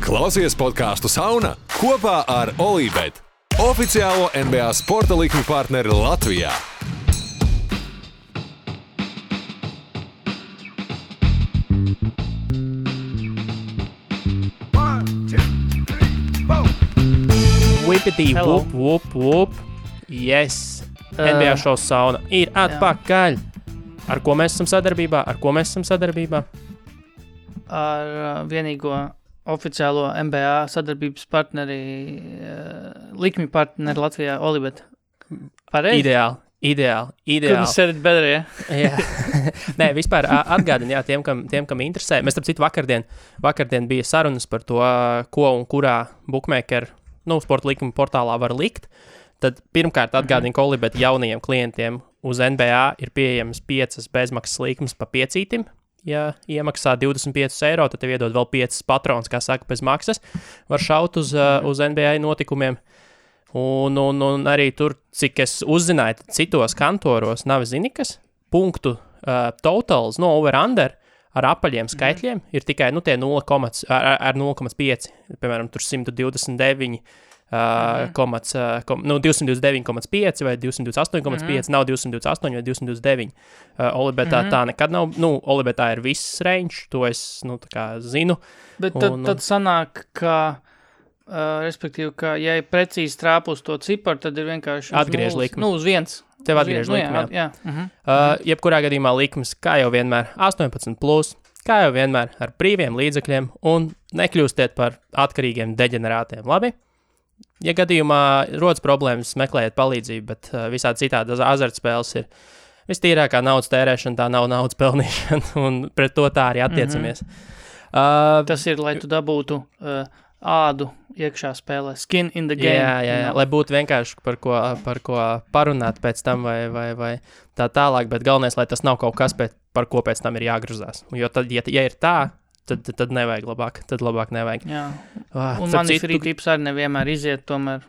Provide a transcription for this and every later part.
Klausies podcastu Sauna kopā ar Olībet, oficiālo NBA sporta likmi partneri Latvijā. Whippity, whoop. Yes. NBA šovs Sauna ir atpakaļ. Ar ko mēs esam sadarbībā? Ar vienīgo oficiālo NBA sadarbības partneri, likmi partneri Latvijā, Olībet. Pareizi? Ideāli. Couldn't said it better, ja? Jā. Nē, vispār atgādini, jā, tiem, kam interesē. Mēs, starp citu, vakardien bija sarunas par to, ko un kurā bookmaker, sporta likuma portālā var likt. Tad pirmkārt atgādini, ka Olībet jaunajiem klientiem uz NBA ir pieejams 5 bezmaksas likmes pa 5. Ja iemaksā 25 eiro, tad tev iedod vēl 5 patrons, kā saka, bez maksas. Var šaut uz NBA notikumiem. Un arī tur, cik es uzzināju, citos kantoros nav zinikas, punktu totals, over-under ar apaļiem skaitļiem ir tikai tie 0,5, piemēram, tur 129, 229,5 vai 228,5, nav 228 vai 229. Olībetā tā nekad nav, Olībetā ir viss range, to es, tā kā zinu. Bet tad sanāk, ka, respektīvi, ka, ja ir precīzi trāpus to ciparu, tad ir vienkārši atgriež likmi. Uz viens. Tev atgriež likmi, jā. Jebkurā gadījumā likmes, kā jau vienmēr, 18+, kā jau vienmēr, ar brīviem līdzekļiem un nekļūstiet par atkarīgiem deģenerātiem, labi? Ja gadījumā rodas problēmas, meklējiet palīdzību, bet visādi citādi azartspēles ir vistīrākā naudas tērēšana, tā nav naudas pelnīšana, un pret to tā arī attiecamies. Tas ir, lai tu dabūtu ādu iekšā spēlē, skin in the game. Jā, lai būtu vienkārši par ko parunāt pēc tam vai tā tālāk, bet galvenais, lai tas nav kaut kas, par ko pēc tam ir jāgruzās. Jo tad, ja ir tā, tad nevajag labāk nevajag. Jā. Un mani free tips arī nevienmēr iziet, tomēr.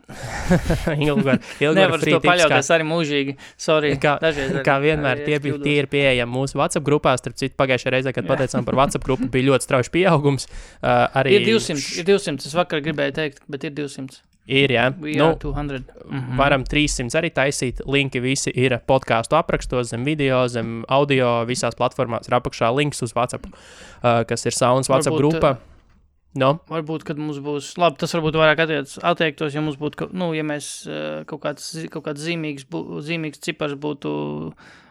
Ilgvar nevar free to paļauties arī mūžīgi. Sorry. Kā vienmēr tie ir pieejami mūsu WhatsApp grupās. Starp citu, pagājušajā reizē, kad pateicām par WhatsApp grupu, bija ļoti strauji pieaugums. Ir 200. Es vakar gribēju teikt, bet ir 200. Ir, jā. We are 200. Varam 300 arī taisīt. Linki visi ir podcastu aprakstos, zem video, zem audio, visās platformās ir apakšā links uz WhatsApp, kas ir Saunas WhatsApp grupa. Varbūt, kad mums būs, labi, tas varbūt vairāk attiektos, ja mums būtu, ja mēs kaut kāds zīmīgs cipars būtu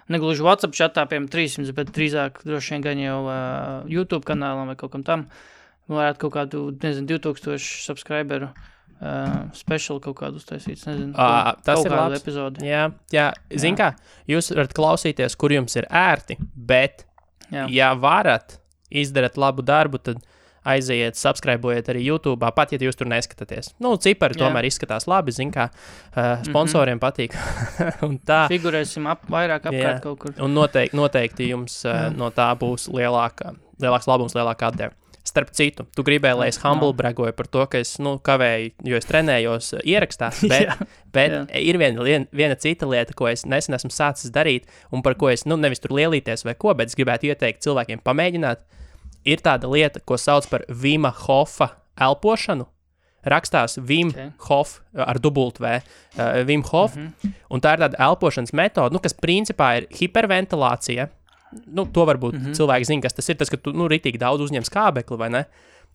negluži WhatsApp chatā, piemēram 300, bet drīzāk droši vien gan jau YouTube kanālam vai kaut kam tam, varētu kaut kādu, 2000 subscriberu special kaut kādu uztaisīts, tas ir labs epizodi. Jā, zin kā, jūs varat klausīties, kur jums ir ērti, bet, ja varat izdarāt labu darbu, tad aiziet, subscribe-ojiet arī YouTube, pat, ja jūs tur neskatāties. Cipari tomēr izskatās labi, zin kā, sponsoriem patīk. Un tā. Figurēsim vairāk apkārt kaut kur. Un noteikti jums no tā būs lielāks labums, lielāka atdeva. Starp citu, tu gribēji, lai es humble bragoju par to, ka es kavēju, jo es trenējos ierakstā, bet ir viena cita lieta, ko es nesen esmu sācis darīt, un par ko es nevis tur lielīties vai ko, bet es gribētu ieteikt cilvēkiem pamēģināt. Ir tāda lieta, ko sauc par Vima Hofa elpošanu. Rakstās Wim Hof ar dubultu V, Wim Hof, un tā ir tāda elpošanas metode, kas principā ir hiperventilācija. To varbūt cilvēki zina, kas tas ir, tas, ka tu ritīgi daudz uzņem skābekli, vai ne?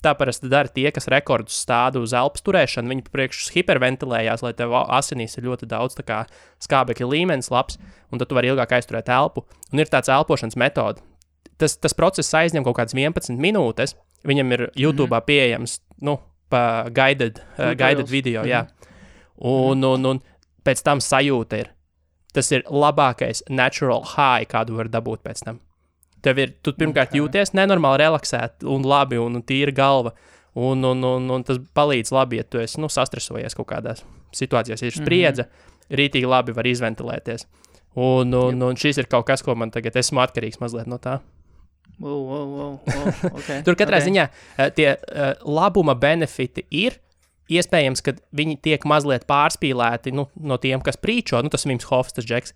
Tā parasti dara tie, kas rekordus stāda uz elpas turēšanu, viņi priekš hiperventilējās, lai tev asinīs ir ļoti daudz tā kā skābekļa līmenis labs, un tad tu vari ilgāk aizturēt elpu. Un ir tāds elpošanas metode. Tas process aizņem kaut kādas 11 minūtes, viņam ir YouTube'ā pieejams, pa guided video, jā. Un pēc tam sajūta ir. Tas ir labākais natural high, kādu var dabūt pēc tam. Tu pirmkārt jūties nenormāli relaksēt un labi, un tīra galva, un tas palīdz labi, ja tu esi, sastresojies kaut kādās situācijās, ir spriedze, rītīgi labi var izventilēties. Un šis ir kaut kas, ko man tagad esmu atkarīgs mazliet no tā. Okay. Tur katrā ziņā tie labuma benefiti ir, iespējams, ka viņi tiek mazliet pārspīlēti no tiem, kas prīčo, tas Vims Hofs, tas džeks,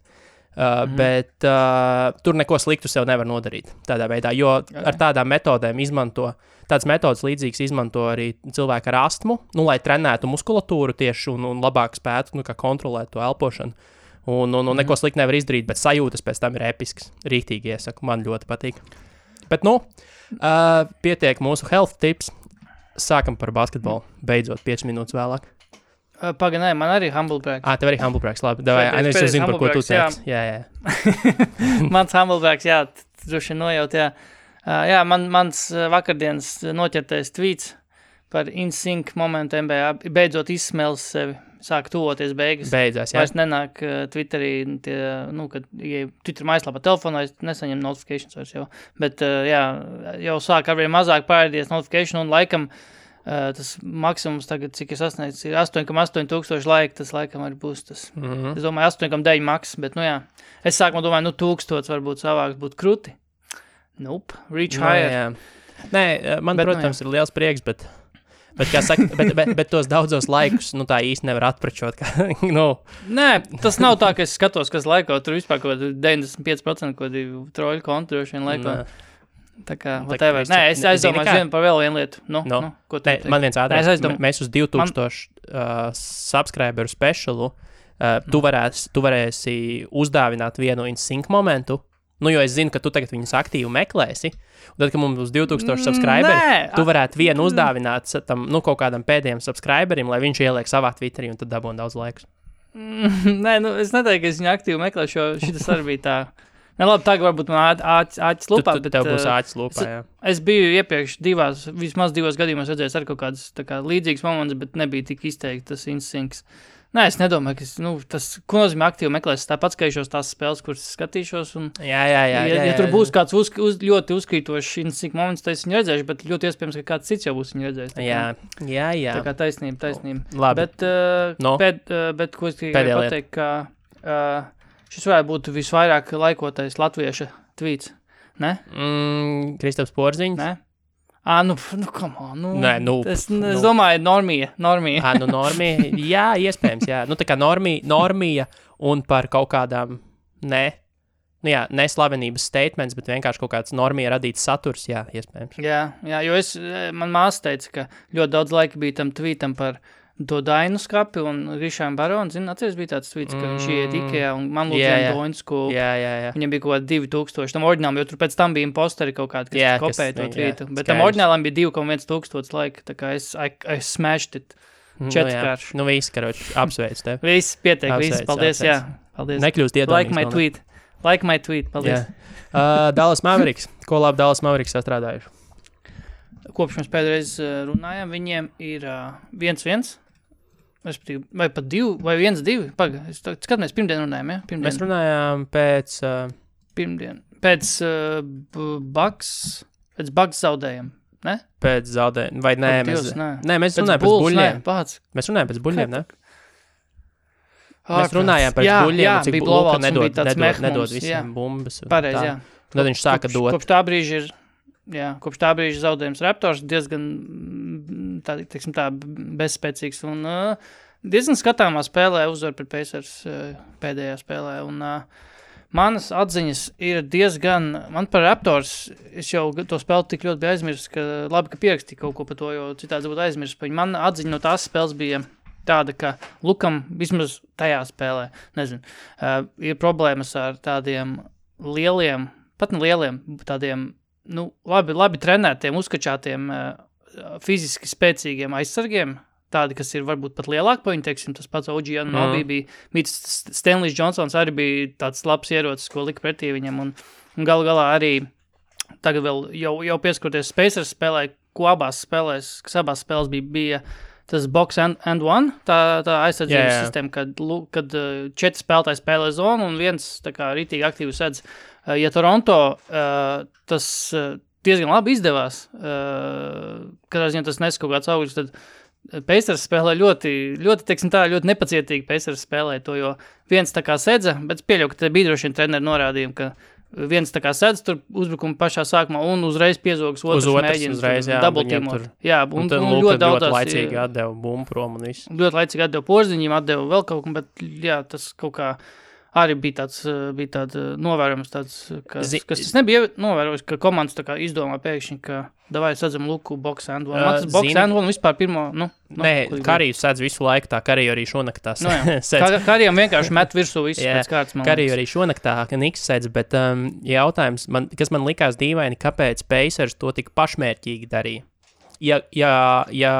bet tur neko sliktu sev nevar nodarīt tādā veidā, jo ar tādām metodēm izmanto, tāds metodas līdzīgs izmanto arī cilvēki ar astmu, nu, lai trenētu muskulatūru tieši un labāk spētu, nu, kā kontrolēt to elpošanu. Un neko slikti nevar izdarīt, bet sajūtas pēc tam ir episks. Rīktīgi iesaku, man ļoti patīk. Bet, pietiek mūsu health tips. Sākam par basketbolu. Beidzot, 5 minūtes vēlāk. Paga, nē, man arī humble brags. Tev arī humble brags, labi. Es jau zinu, par ko tu teici. Jā. Mans humble brags, jā, droši nojaut, jā. Jā, mans vakardienas noķertais tweets par in-sync momentu NBA beidzot izsmēlis sevi. Sāk tuvoties beigas. Beidzās, jā. Vairs nenāk Twitterī, kad Twitter mājaslapā telefonā es nesaņem notifications vairs jau. Bet, jau sāk arvien mazāk pārēdies notification un laikam tas maksimums tagad, cik es sasniedzu, ir 8,8 tūkstoši laika, tas laikam arī būs tas. Es domāju, 8,9 maks, bet, es sākumā domāju, 1000 varbūt savāks būtu kruti. Nope, reach higher. Jā. Nē, man, protams, ir liels prieks, bet kā saka, bet tos daudzos laikus, tā īsti nevar atpračot. Nē, tas nav tā, ka es skatos, kas laiko, tur vispār kaut 95% kaut troļu kontu droši vien laiko. Tā kā, whatever. Nē, es aizdomāju par vēl vienu lietu. Ko tu teici? Man viens ātrāk, mēs uz 2000 subscriberu specialu, tu varēsi uzdāvināt vienu in-sync momentu, jo es zinu, ka tu tagad viņus aktīvi meklēsi, un tad, kad mums būs 2000 subscriberi, tu varētu vienu uzdāvināt tam, kaut kādam pēdējiem subscriberim, lai viņš ieliek savā Twitterī un tad dabūna daudz laikus. Nē, es neteiktu, ka es viņu aktīvi meklēšu, jo šitas arī bija tā. Ne, labi, tagad varbūt man āķis lupā, bet... Tev būs āķis lupā, jā. Es biju iepriekš vismaz divos gadījumos redzējis ar kaut kādas līdzīgas momentus, bet nebija tik izteikti tas instinkts. Nē, es nedomāju, ka tas, ko nozīmē aktīvi meklēs, tāpat skatīšos tās spēles, kuras skatīšos, un ja tur būs kāds ļoti uzkrītošs instinkt moments, tad es viņu redzēšu, bet ļoti iespējams, ka kāds cits jau būs viņu redzējis. Jā. Tā kā taisnība. Labi. Bet ko es tikai pateikt, ka šis varētu būt visvairāk laikotais latvieša tweets, ne? Kristaps Porziņš? Ne? Come on, Nē, es domāju, normija. Normija, jā, iespējams, jā. Tā kā normija un par kaut kādām, neslavenības statements, bet vienkārši kaut kāds normija radīts saturs, jā, iespējams. Jā, jo man māsa teica, ka ļoti daudz laika bija tam tweetam par to Dainu skapi un Rišām Baronu, atceries bija tāds tweets, ka viņš iet Ikea un man lūdzīja Dainu skopu. Jā. Viņam bija kaut 2000, tam oriģinālam, jo tur pēc tam bija imposteri kaut kādi, kas kopēja to tweetu. Bet tam oriģinālam bija 2,1000 laika, tā kā es smashed it 4kārši. Viss, karoči, apsveic tev. Viss, pietiek, viss, paldies, jā. Paldies. Nekļūst iedomīgs. Like my tweet, paldies. Dallas Mavericks. Ko labi Dallas Mavericks sastrādājuši? Kopš mēs pēdreiz runājam, viņiem ir 1-1. Vai pat 2, vai 1-2. Skatāmies, pirmdien runājam, ja? Pirmdien. Mēs runājām pēc... Pirmdien. Pēc Bucks zaudējam, ne? Pēc zaudējam, vai nē? Mēs runājām pēc buļļiem. Mēs runājām pēc buļļiem, ne? Mēs runājām pēc buļļiem, cik Luka nedod visiem bumbas. Pareiz, jā. Tad viņš sāka dot. Kopš tā brīža zaudējums Raptors diezgan tā bezspēcīgs un diezgan skatāmā spēlē uzvar pret Pacers pēdējā spēlē. Un manas atziņas ir diezgan, man par Raptors, es jau to spēli tik ļoti biju aizmirst, ka labi, ka pierakstīju kaut ko par to, jo citādi būtu aizmirst. Man atziņa no tās spēles bija tāda, ka Lukam vismaz tajā spēlē, ir problēmas ar tādiem lieliem, pat ne lieliem, tādiem labi trenētiem, uzkačātiem, fiziski spēcīgiem aizsargiem, tādi, kas ir varbūt pat lielāki par viņu, teiksim, tas pats OG Anunoby bija Stanleys Johnsons arī bija tāds labs ierocis, ko lika pretī viņam, un galu galā arī tagad vēl jau pieskaroties Pacers spēlē, kas abās spēlēs bija tas box and one, tā aizsardzības sistēma, kad 4 spēlētāji spēlē zonu un viens tā kā rītīgi aktīvi sedz. Ja Toronto tas diezgan labi izdevās, kad tas nes kaut kāds augļus, tad Pacers spēlē ļoti, teiksim tā, ļoti nepacietīgi Pacers spēlē to, jo viens tā kā sedza, bet pieļauju, ka te bija droši vien treneri norādījumi, ka viens tā kā sedz tur uzbrukuma pašā sākumā un uzreiz piezogas otrs mēģina double-teamot. Jā, un ļoti laicīgi atdeva bumbu prom un viss. Ļoti laicīgi atdeva Porziņiem, atdeva vēl kaut ko, bet jā, tas kaut kā arī bija tāds novērojums, kas tas nebija novērojis, ka komandas tā kā izdomā pēkšņi, ka davai sadzam Luku box and one. Man tas box and one vispār pirmo, Nē, Kariju sēdz visu laiku tā, Kariju arī šonaktā sēdz. Karijam vienkārši met virsū visu pēc kārtas. Kariju arī šonaktā, ka Niks sēdz, bet jautājums, kas man likās dīvaini, kāpēc Pacers to tik pašmērķīgi darīja. Ja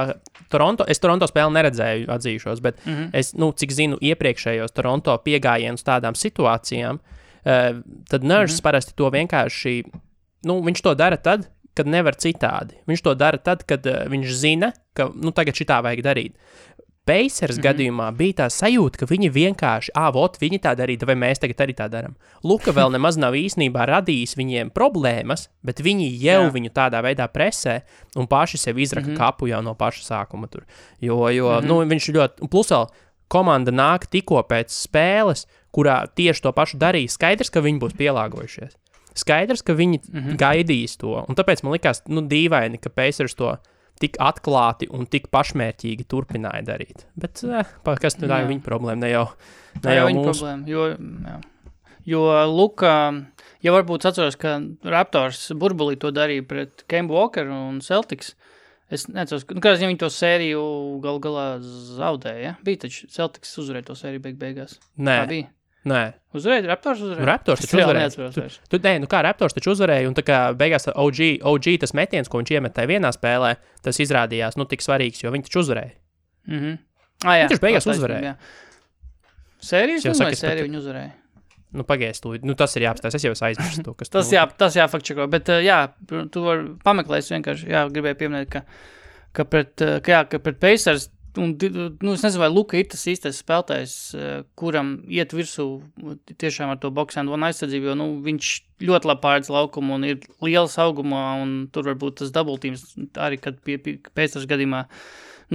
Toronto, es Toronto spēli neredzēju, atzīšos, bet es, cik zinu, iepriekšējos Toronto piegājienus tādām situācijām, tad Nurse parasti to vienkārši, viņš to dara tad, kad nevar citādi. Viņš to dara tad, kad viņš zina, ka, tagad šitā vajag darīt. Pacers gadījumā bija tā sajūta, ka viņi vienkārši, viņi tā darīja, vai mēs tagad arī tā daram. Luka vēl nemaz nav īstenībā radījis viņiem problēmas, bet viņi jau viņu tādā veidā presē un paši sev izraka kapu jau no paša sākuma tur. Jo viņš ļoti, un plus vēl komanda nāk tikko pēc spēles, kurā tieši to pašu darīja. Skaidrs, ka viņi būs pielāgojušies. Skaidrs, ka viņi gaidīs to, un tāpēc man likās, dīvaini, ka Pacers to tik atklāti un tik pašmērķīgi turpināja darīt. Bet, kas tā ir viņa problēma, ne jau viņa mūsu. Problēma, jo Luka, ja varbūt atceros, ka Raptors burbulī to darīja pret Kemba Walkeru un Celtics, es neceros, kāds viņi to sēriju galā zaudēja, bija taču Celtics uzvarēja to sēriju beigās. Nē. Tā bija? Nē. Uzvarēja? Raptors uzvarēja? Raptors taču uzvarēja. Raptors taču uzvarēja, un tā kā beigās OG tas metiens, ko viņš iemet tajā vienā spēlē, tas izrādījās, tik svarīgs, jo viņi taču uzvarēja. Jā. Viņš taču beigās uzvarēja. Sērijas vai sēriju viņi uzvarēja? Pagaist, tas ir jāapstājas, es jau aizmirstu to, kas tas jāfakčeko, bet tu var pameklēt vienkārši, gribēju pieminēt, ka pret Pacers, un, es nezinu, vai Luka ir tas īstais spēlētājs, kuram iet virsū tiešām ar to box and one aizsardzību, jo, viņš ļoti labi pārēdz laukumu un ir liels augumā, un tur varbūt tas double teams arī, kad Pacers gadījumā,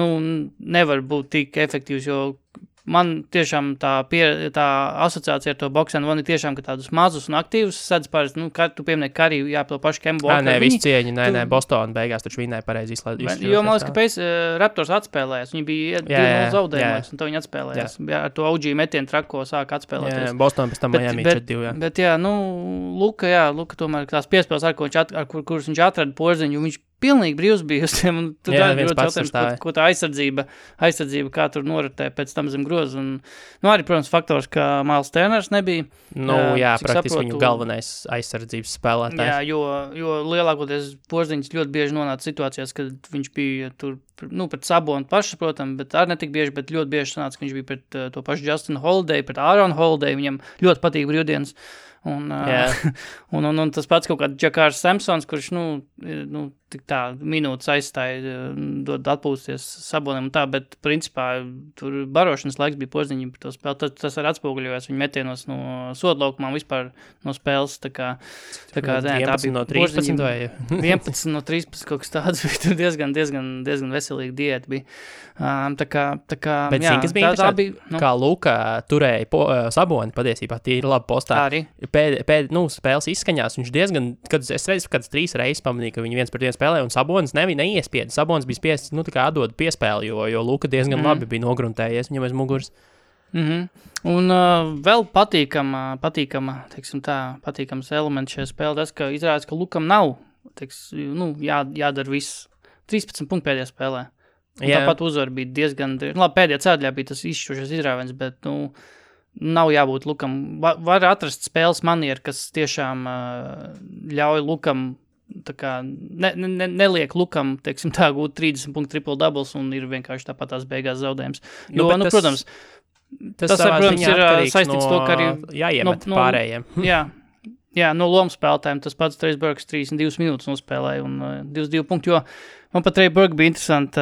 nevar būt tik efektīvs, jo man tiešām tā asociācija ar to box and one ir tiešām, ka tādus mazus un aktīvus sedz pārēc, tu pieminēji Kariju, to pašu Kembu Walkeru. Nē, visu cieņi, nē, Boston beigās taču vinēja pareizi izslēdz. Jo, man liekas, ka Raptors atspēlējās, viņi bija 2-0 zaudējumos, un to viņi atspēlējās. Ar to OG metienu trako sāka atspēlēties. Jā, Boston pēc tam Miami 4-2, Bet, Luka tomēr tās piespēles, kuras viņš atrada porziņu, viņš pilnīgi brīvs bija uz tiem, un tur ļoti jautājums, ko tā aizsardzība, kā tur noritē pēc tam zem groza, un, arī, protams, faktors, ka Miles Turners nebija. Praktiski viņu galvenais aizsardzības spēlētājs. Jā, jo lielākoties porziņas ļoti bieži nonāca situācijās, kad viņš bija tur, pret Sabonu pašu, protams, bet arī netik bieži, bet ļoti bieži sanāca, ka viņš bija pret to pašu Justin Holiday, pret Aaron Holiday, viņam ļoti patīk brīvdienas. Un tas pats kaut kāds Džakārs Samsons, kurš, tik tā minūtes aizstāja, dod atpūsties Sabonim un tā, bet principā tur barošanas laiks bija porziņi par to spēli. Tas arī atspoguļojās viņa metienos no sodlaukumā vispār no spēles. Tā kā 11 no 13 vai? 11 no 13 kaut kas tāds bija, tur diezgan veselīgi diēta bija. Bet zini, kas bija interesanti, kā Luka turēja Saboni patiesībā, tie ir labi postā. Arī. Spēles izskaņās, viņš diezgan, es redzu, kāds 3 reizes pamanīja, ka viņi viens pret vienu spēlē, un Sabonis neiespiedu. Sabonis bija spiests, tā kā atdod piespēli, jo Luka diezgan labi bija nogruntējies viņam aiz muguras. Un vēl patīkams elements šajā spēlē, tas, ka izrādās, ka Lukam nav, jādara viss 13 punktu pēdējā spēlē. Tāpat uzvar bija diezgan, pēdējā ceļā bija tas izšķirošais izrāviens, bet, nav jābūt Lukam. Var atrast spēles manieru, kas tiešām ļauj Lukam, tā kā neliek Lukam, gūt 30 punktu triple doubles un ir vienkārši tāpat tās beigās zaudējums. Protams, tas protams, ir saistīts to, ka arī jāiemet pārējiem. Jā, no lomu spēlētājiem tas pats Trey Burks 32 minūtes nospēlēja un 22 punktu, jo man pat Trey Burks bija interesanti,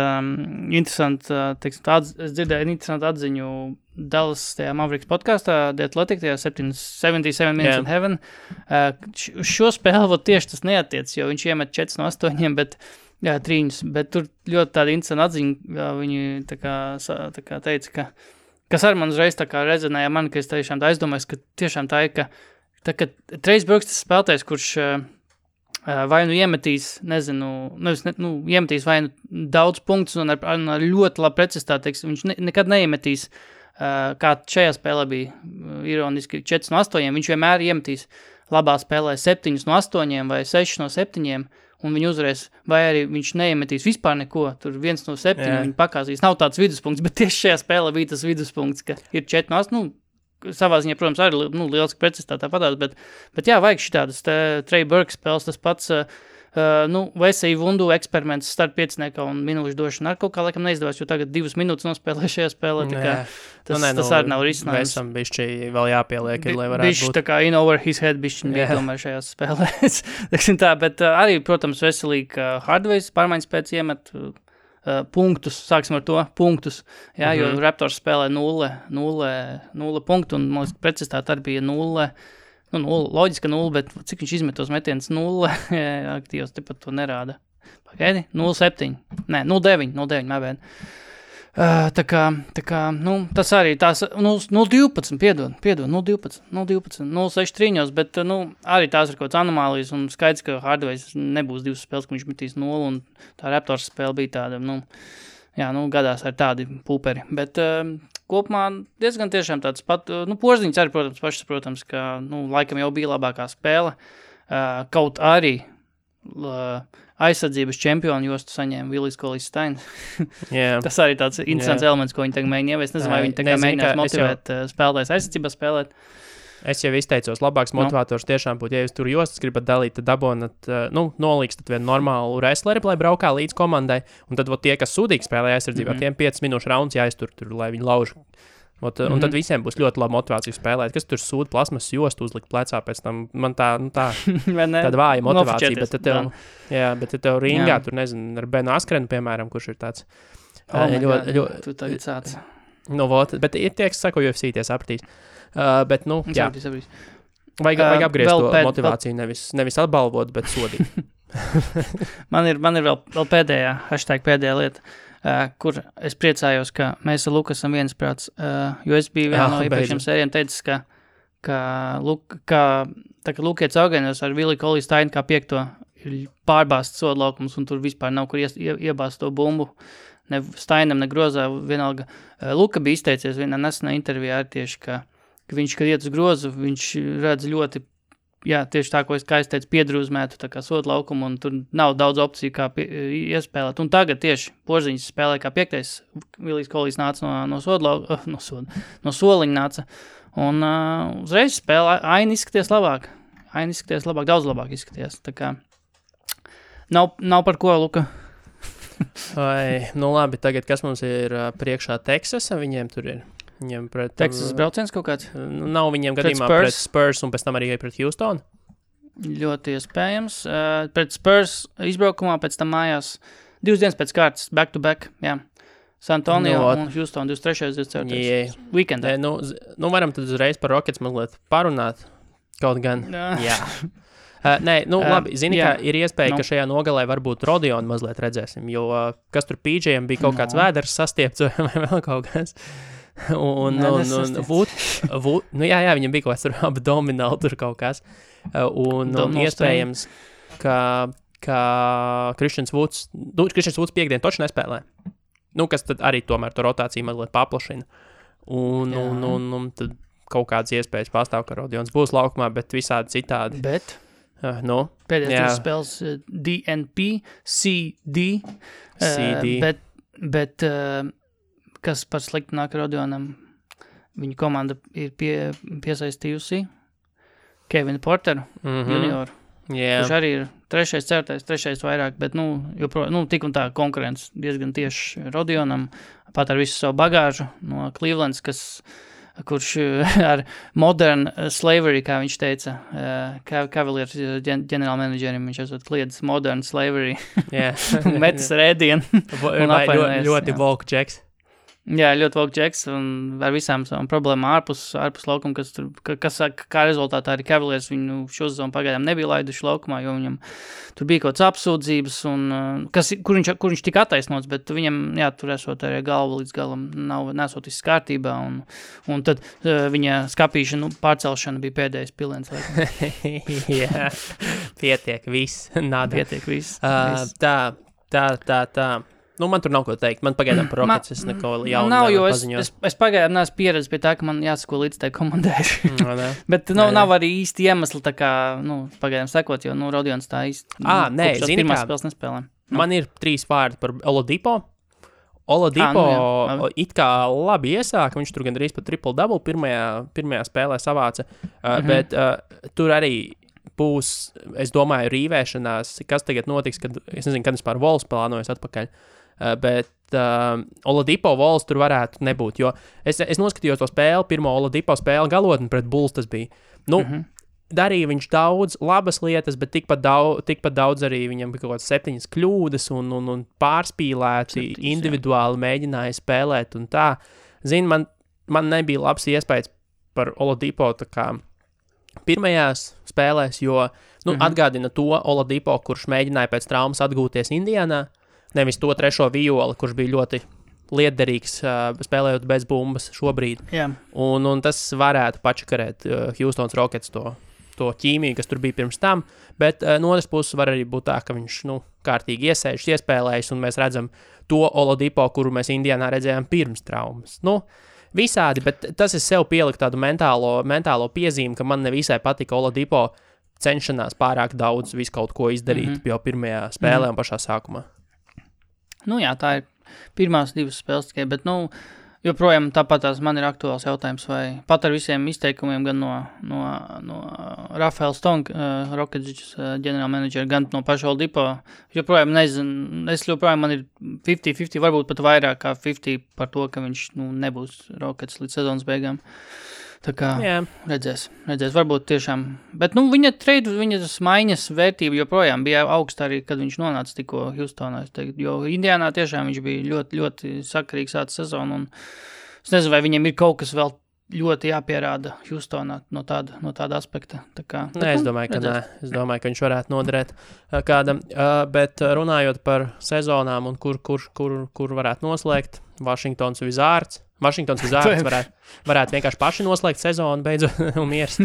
es dzirdēju interesantu atziņu Dallas tajā Mavericks podkastā, The Athletic, tajā 77 Minutes in Heaven. Šo spēli tieši tas neatiec, jo viņš iemet 4 no 8, bet trīņus, bet tur ļoti tāda interesanta atziņa, viņi tā kā teica, kas arī man uzreiz tā kā rezonēja man, ka es tiešām tā aizdomājos, ka tiešām tā ir, ka Trey Burks tas spēlētājs, kurš vai iemetīs, iemetīs vai daudz punktus un ar ļoti labu precizitāti, viņš nekad neiemetīs, kā šajā spēlē bija ironiski 4 no 8, viņš vienmēr iemetīs labā spēlē 7 no 8 vai 6 no 7, un viņi uzvarēs, vai arī viņš neiemetīs vispār neko, tur 1 no 7 viņi pakāzīs, nav tāds viduspunkts, bet tieši šajā spēlē bija tas viduspunkts, ka ir 4 no 8, savā ziņā, protams, arī lieliski precizitātā padās, bet jā, vajag šitādas Trey Burke spēles, tas pats, Vesija Vundu eksperiments start 5 un minūšu došana ar kaut kā laikam neizdevās, jo tagad 2 minūtes nospēlē šajā spēlē, tā kā tas arī nav risinājums. Vesam bišķi vēl jāpieliek, lai varētu būt. Bišķi tā kā in over his head bišķi bija tomēr šajās spēlēs. Bet arī, protams, veselīgi, ka Hardways pārmaiņas pēc iemet punktus, sāksim ar to, punktus, jā, jo Raptors spēlē 0 punktu, un, man liekas, precizitāte arī bija 0, loģiski 0, bet cik viņš izmet tos metienus 0, aktīvos tepat to nerāda. Pagaidi, 0,7, nē, 0,9, mābēd. Tā kā, tas arī tās, 0,12, piedod, 0,12, 0,6 trīņos, bet, arī tās ir kaut kāds anomālijas, un skaidrs, ka Hardways nebūs 2 spēles, ka viņš metīs 0, un tā Raptors spēle bija tāda, gadās ar tādi pūperi, bet kopumā diezgan tiešām tāds pat, Porziņš arī, protams, ka, laikam jau bija labākā spēle, kaut arī aizsardzības čempionu jostu saņēma Willis Cauley-Steins. Tas arī tāds interesants elements, ko viņi tagad mēģina ieviest. Nezinu, vai viņi tagad mēģinās motivēt spēlētājs aizsardzībā spēlēt. Es jau izteicos, labāks motivators tiešām būtu, ja jūs tur jostas gribat dalīt, tad dabonat, nolīkstat vienu normālu wrestleri, lai braukā līdz komandai, un tad tie, kas sūdīgi spēlē aizsardzībā, tiem 5 minūšu rauns jāiztur tur, lai viņi lauž. Un tad visiem būs ļoti laba motivācija spēlēt. Kas tur sūta plasmas jostu uzlikt plecā pēc tam? Man tāda vāja motivācija. Bet tev ringā, tur nezinu, ar Benu Askrenu, piemēram, kurš ir tāds. Tu tagad sāc. Bet ir tie, kas saka, UFC tie sapratīs. Bet, jā. Vajag apgriezt to motivāciju, nevis atbalvot, bet sodīt. Man ir vēl pēdējā lieta. Kur es priecājos, ka mēs ar Luku esam viensprāts, jo es biju vienā no iepriekšējiem sērijiem teicis, ka Lukietis Augenos ar Willi Cauley-Steinu kā 5. ir pārbāsts sodlaukums, un tur vispār nav kur iebāzt to bumbu, ne Steinam, ne Grozā, vienalga. Luka bija izteicies vienā nesenā intervijā arī tieši, ka viņš, kad iet uz grozu, viņš redz ļoti, tieši tā, ko es teicu, piedrūzmētu tā kā sodu laukumu, un tur nav daudz opciju, kā iespēlēt. Un tagad tieši Porziņš spēlē kā 5. Willis Cauley nāca no soliņa nāca. Un uzreiz spēlē aina izskaties labāk. Daudz labāk izskaties. Tā kā nav par ko, Luka. Labi, tagad kas mums ir priekšā Teksasa, viņiem tur ir. Teksas brauciens kaut kāds? Nav viņiem gadījumā pret Spurs un pēc tam arī pret Houston? Ļoti iespējams. Pret Spurs izbraukumā, pēc tam mājās 2 dienas pēc kārtas, back to back, jā. San Antonio un Houston 23. 24. Weekendā. Varam tad uzreiz par Rockets mazliet parunāt kaut gan. Jā. Labi, zini, ka ir iespēja, ka šajā nogalē varbūt Rodionu mazliet redzēsim, jo kas tur PJ'iem bija kaut kāds vēders sastiepts vai vēl kaut kas. Viņam bija kaut kāds abdomināli tur kaut kas. Un iespējams, ka Christians Woods piekdien toči nespēlē. Kas tad arī tomēr to rotāciju mazliet paplašina. Un tad kaut kādas iespējas pastāv, ka Rodions būs laukumā, bet visādi citādi. Pēdējās spēles DNP, CD. Bet kas par sliktu nāk Rodionam, viņa komanda ir piesaistījusi Kevinu Porteru junioru, kurš arī ir 3., 4., 3. vairāk, bet, tik un tā konkurence diezgan tieši Rodionam, pat ar visu savu bagāžu no Clevelands, kurš ar modern slavery, kā viņš teica, Cavaliers ģenerālmenedžerim, viņš esot kliedis modern slavery, metis ar ēdienu. Ļoti woke Jacks. Jā, ļoti woke Jacks, un ar visām savām problēmām ārpus laukuma, kas kā rezultātā arī Cavaliers viņu šo sezonu pagaidām nebija laiduši laukumā, jo viņam tur bija kaut kāds apsūdzības, un kur viņš tika attaisnots, bet viņam, tur esot arī galva līdz galam nesot viss kārtībā, un tad viņa skapīšana, pārcelšana bija pēdējais piliens. Pietiek viss, nada. Pietiek viss. Tā. Nu, man tur nav ko teikt. Man pagaidām par Rockets es neko jaunu nav, jo paziņot. es pagaidām neesmu pieredzis pie tā, ka man jāsako līdz tai komandai. Bet nav arī īsti iemesli tā kā, pagaidām sekot, jo, Rodions tā īsti. Nē, zini pirmās spēles nespēlē. Man ir 3 vārdi par Oladipo. Oladipo it kā labi iesāka, viņš tur gandrīz pat triple-double pirmajā spēlē savāca, bet tur arī būs, es domāju, rīvēšanās, kas tagad notiks, kad, es nezinu, kad vispār Vols plānojas atpakaļ, bet Oladipo Vols tur varētu nebūt, jo es noskatījos to spēli, pirmo Oladipo spēli galotni pret Bulls tas bija. Darīja viņš daudz labas lietas, bet tikpat daudz arī viņam bija kaut kādas 7 kļūdas un pārspīlēti, individuāli mēģināja spēlēt un tā. Zini, man nebija labs iespējas par Oladipo tā kā pirmajās spēlēs, jo atgādina to Oladipo, kurš mēģināja pēc traumas atgūties Indianā, nevis to 3. violi, kurš bija ļoti lietderīgs spēlējot bez bumbas šobrīd. Yeah. Un tas varētu pačakarēt Houstons Rockets to ķīmiju, kas tur bija pirms tam, bet no otras puses var arī būt tā, ka viņš, kārtīgi iesēžas, iespēlējas, un mēs redzam to Oladipo, kuru mēs Indianā redzējām pirms traumas. Visādi, bet tas es sev pieliku tādu mentālo piezīmi, ka man nevisai patika Oladipo cenšanās pārāk daudz visu kaut ko izdarīt jau pirmajā spēlē un pašā sākumā. Jā, tā ir pirmās 2 spēles tikai, bet, joprojām tāpat man ir aktuāls jautājums, vai pat ar visiem izteikumiem gan no Rafaela Stonka, Rockets ģenerālmenedžera, gan no paša Oladipo, joprojām nezinu, man ir 50-50, varbūt pat vairāk kā 50 par to, ka viņš nebūs Rockets līdz sezonas beigām. Tā kā redzēs, varbūt tiešām, bet viņa maiņas vērtība joprojām bija augsta arī, kad viņš nonāca tikko Houstonā, jo Indianā tiešām viņš bija ļoti, ļoti sakarīgs sāca sezonu, un es nezinu, vai viņam ir kaut kas vēl ļoti jāpierāda Houstonā no tāda aspekta. Es domāju, ka nē. Es domāju, ka viņš varētu noderēt kādam, bet runājot par sezonām un kur varētu noslēgt, Washingtons Wizards varētu vienkārši paši noslēgt sezonu beidzot un miers.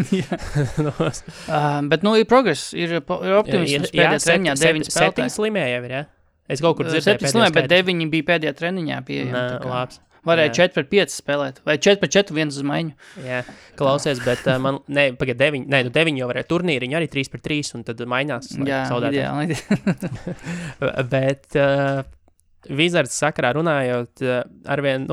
Bet, ir progress, ir optimisms pēdējā treniņā, 9 spēlētāji. 7 slimēja jau ir, ja? Es kaut kur dzirdēju 7 slimēja, bet 9 bija pēdējā treniņā pieejami. Labs. Varēja 4-5 spēlēt, vai 4-4 viens uz maiņu. Jā, klausies, bet pagad 9 jau varēja turnīriņu, arī 3-3, un tad maiņās. Jā, ideāli. Bet Wizards sakarā runājot, arvien,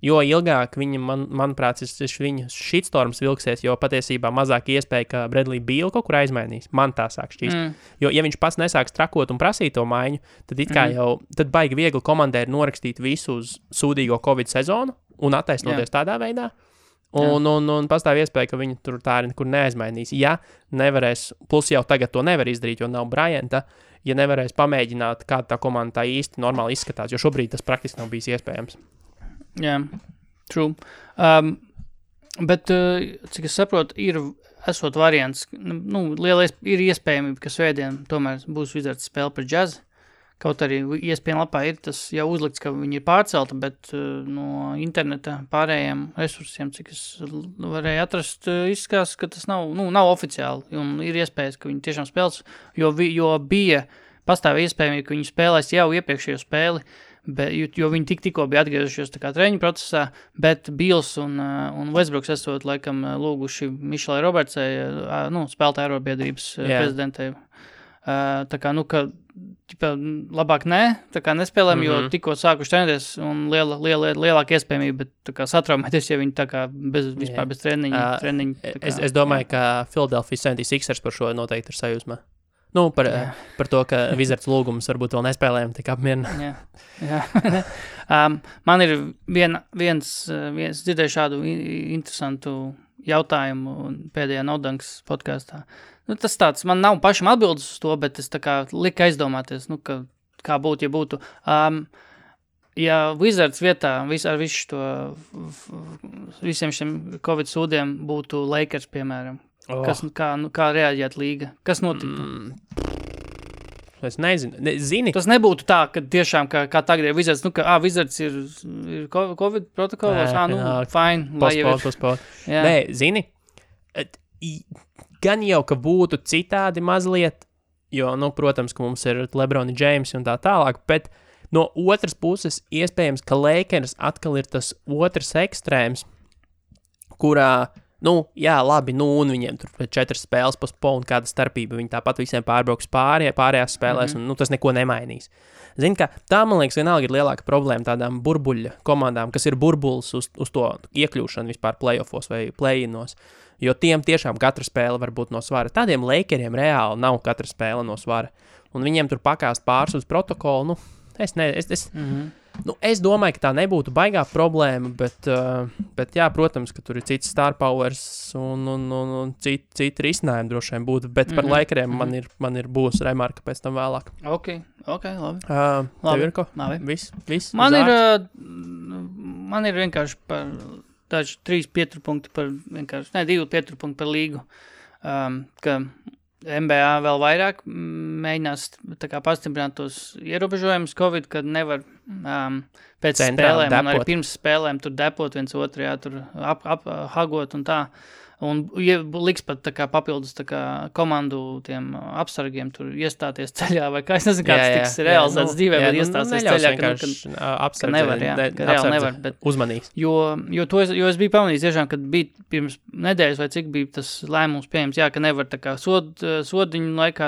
jo ilgāk viņa, manuprāt, viņa shitstorms vilksies, jo patiesībā mazāk iespēja, ka Bradley Beal kaut kur aizmainīs. Man tā sāk šķīst. Jo, ja viņš pats nesāks trakot un prasīt to maiņu, tad it kā tad baigi viegli komandai ir norakstīt visu uz sūdīgo Covid sezonu un attaisnoties tādā veidā. Un pastāv iespēja, ka viņi tur tā arī nekur neaizmainīs. Ja nevarēs, plus jau tagad to nevar izdarīt, jo nav Bryanta, ja nevarēs pamēģināt, kā tā komanda tā īsti normāli izskatās, jo šobrīd tas praktiski nav bijis iespējams. Jā, true. Bet, cik es saprotu, esot variants, ir iespējamība, ka svētdien tomēr būs Wizards spēle par Jazz. Kaut arī ESPN lapā ir tas jau uzlikts, ka viņi ir pārcelta, bet no interneta pārējiem resursiem, cik es varēju atrast, izskatās, ka tas nav oficiāli. Un ir iespējas, ka viņi tiešām spēles, jo bija pastāv iespējamība, ka viņi spēlēs jau iepriekšējo spēli, jo viņi tikko bija atgriezušies tā kā treniņu procesā, bet Beals un Westbrooks esot laikam lūguši Mišelai Robertsai, spēlētāju arobiedrības prezidentei. Tā kā, ka labāk tā kā nespēlēm, jo tikko sākuši trenēties un lielāka iespējamība, bet tā kā satraumēties, ja viņi tā kā vispār bez treniņa. Es domāju, ka Philadelphia 76ers par šo noteikti ir sajūsmā. Par to, ka Wizards lūgums varbūt vēl nespēlējam tik apmierina. Jā. Man ir viens dzirdēju šādu interesantu jautājumu pēdējā Nodanks podkastā. Tas tāds, man nav pašam atbildes uz to, bet es tā kā lika aizdomāties, kā būtu, ja būtu. Ja Wizards vietā ar visiem šiem Covid sūdiem būtu Lakers, piemēram, kā reaģēt līga? Kas notiktu? Es nezinu. Zini? Tas nebūtu tā, ka tiešām, kā tagad ir Wizards, Wizards ir Covid protokolos, fine, lai jau ir. Nē, zini, gan jau, ka būtu citādi mazliet, jo, protams, ka mums ir LeBron James un tā tālāk, bet No otras puses, iespējams, ka Lakers atkal ir tas otrs ekstrēms, kurā, jā, labi, un viņiem tur 4 spēles postpone, kāda starpība, viņi tāpat visiem pārbrauks pārējās spēlēs, un tas neko nemainīs. Zini, ka tā, man liekas, vienalga ir lielāka problēma tādām burbuļa komandām, kas ir burbulis uz to iekļūšanu vispār playoffos vai play-inos, jo tiem tiešām katra spēle var būt no svara. Tādiem Lakeriem reāli nav katra spēle no svara, un viņiem tur pakāst pāris uz protokolu, es domāju, ka tā nebūtu baigā problēma, bet jā, protams, ka tur ir cits star powers un citi risinājumi droši vien būtu, bet par Lakeriem man ir būs remarka pēc tam vēlāk. Ok, labi. Tev ir ko? Viss? Man ir vienkārši par daži 3 pieturpunkti par vienkārši, 2 pieturpunkti par līgu, ka NBA vēl vairāk mēģinās tā kā pastiprināt tos ierobežojumus Covid, kad nevar pēc centrāli spēlēm un arī pirms spēlēm tur depot viens otru, jā, tur hagot un tā. Un liks pat tā kā papildus tā kā komandu tiem apsargiem tur iestāties ceļā, vai kā es nezinu, kāds tiks realizēts dzīvē, bet iestāties ceļā, ka nevar, ka reāli nevar. Bet, uzmanīgs. Jo es biju pamanījis tiešām, kad bija pirms nedēļas vai cik bija tas lēmums pieņems, jā, ka nevar tā kā sodiņu laikā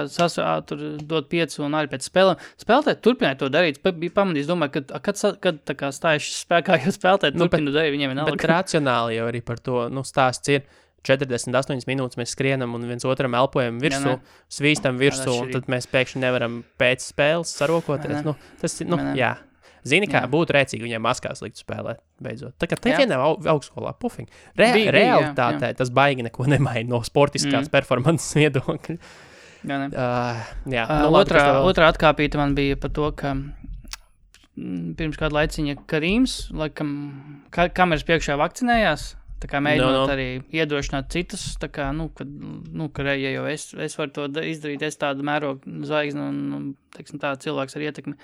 tur dot 5 un arī pēc spēlēm. Spēlētāji turpināja to darīt, bija pamanījis, domāju, kad tā kā stājuši spēkā, jo spēlētāji turpina darīt, viņiem vienalga. Bet racionāli jau arī par to, stāsts ir. 48 minūtes mēs skrienam un viens otram elpojam virsū, svīstam virsū, un tad mēs pēkšņi nevaram pēc spēles sarokoties. Jā. Zini, kā būtu rēcīgi viņiem maskās likt spēlēt, beidzot. Tā kā te vienā augstskolā, pufing. Realitātē tas baigi neko nemaina no sportiskās performances viedokļa. Otrā atkāpīta man bija par to, ka pirms kādu laiciņa Karīms, laikam, kameras priekšā vakcinējās, tā kā mēģinot arī iedrošināt citus, tā kā, ja jau es varu to izdarīt, es tādu mērogu zvaigzni un teiksim tā, cilvēks ar ietekmi,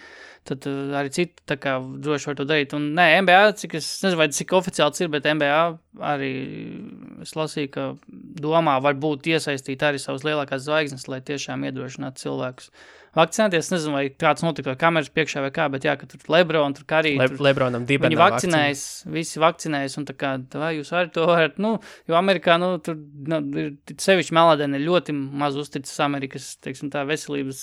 tad arī citi tā kā droši var to darīt. Un NBA, cik es nezinu, vai cik oficiāli ir, bet NBA arī es lasīju, ka domā varbūt iesaistīt arī savas lielākās zvaigznes, lai tiešām iedrošinātu cilvēkus vakcinēties. Es nezinu, vai kāds notika kameras priekšā vai kā, bet jā, ka tur Lebron, tur Karī, Lebronam dibenā viņi vakcinējas, visi vakcinējas, un tā kā, vai jūs arī to varat, jo Amerikā, tur sevišķi melādēni ļoti maz uzticas Amerikas, teiksim tā, veselības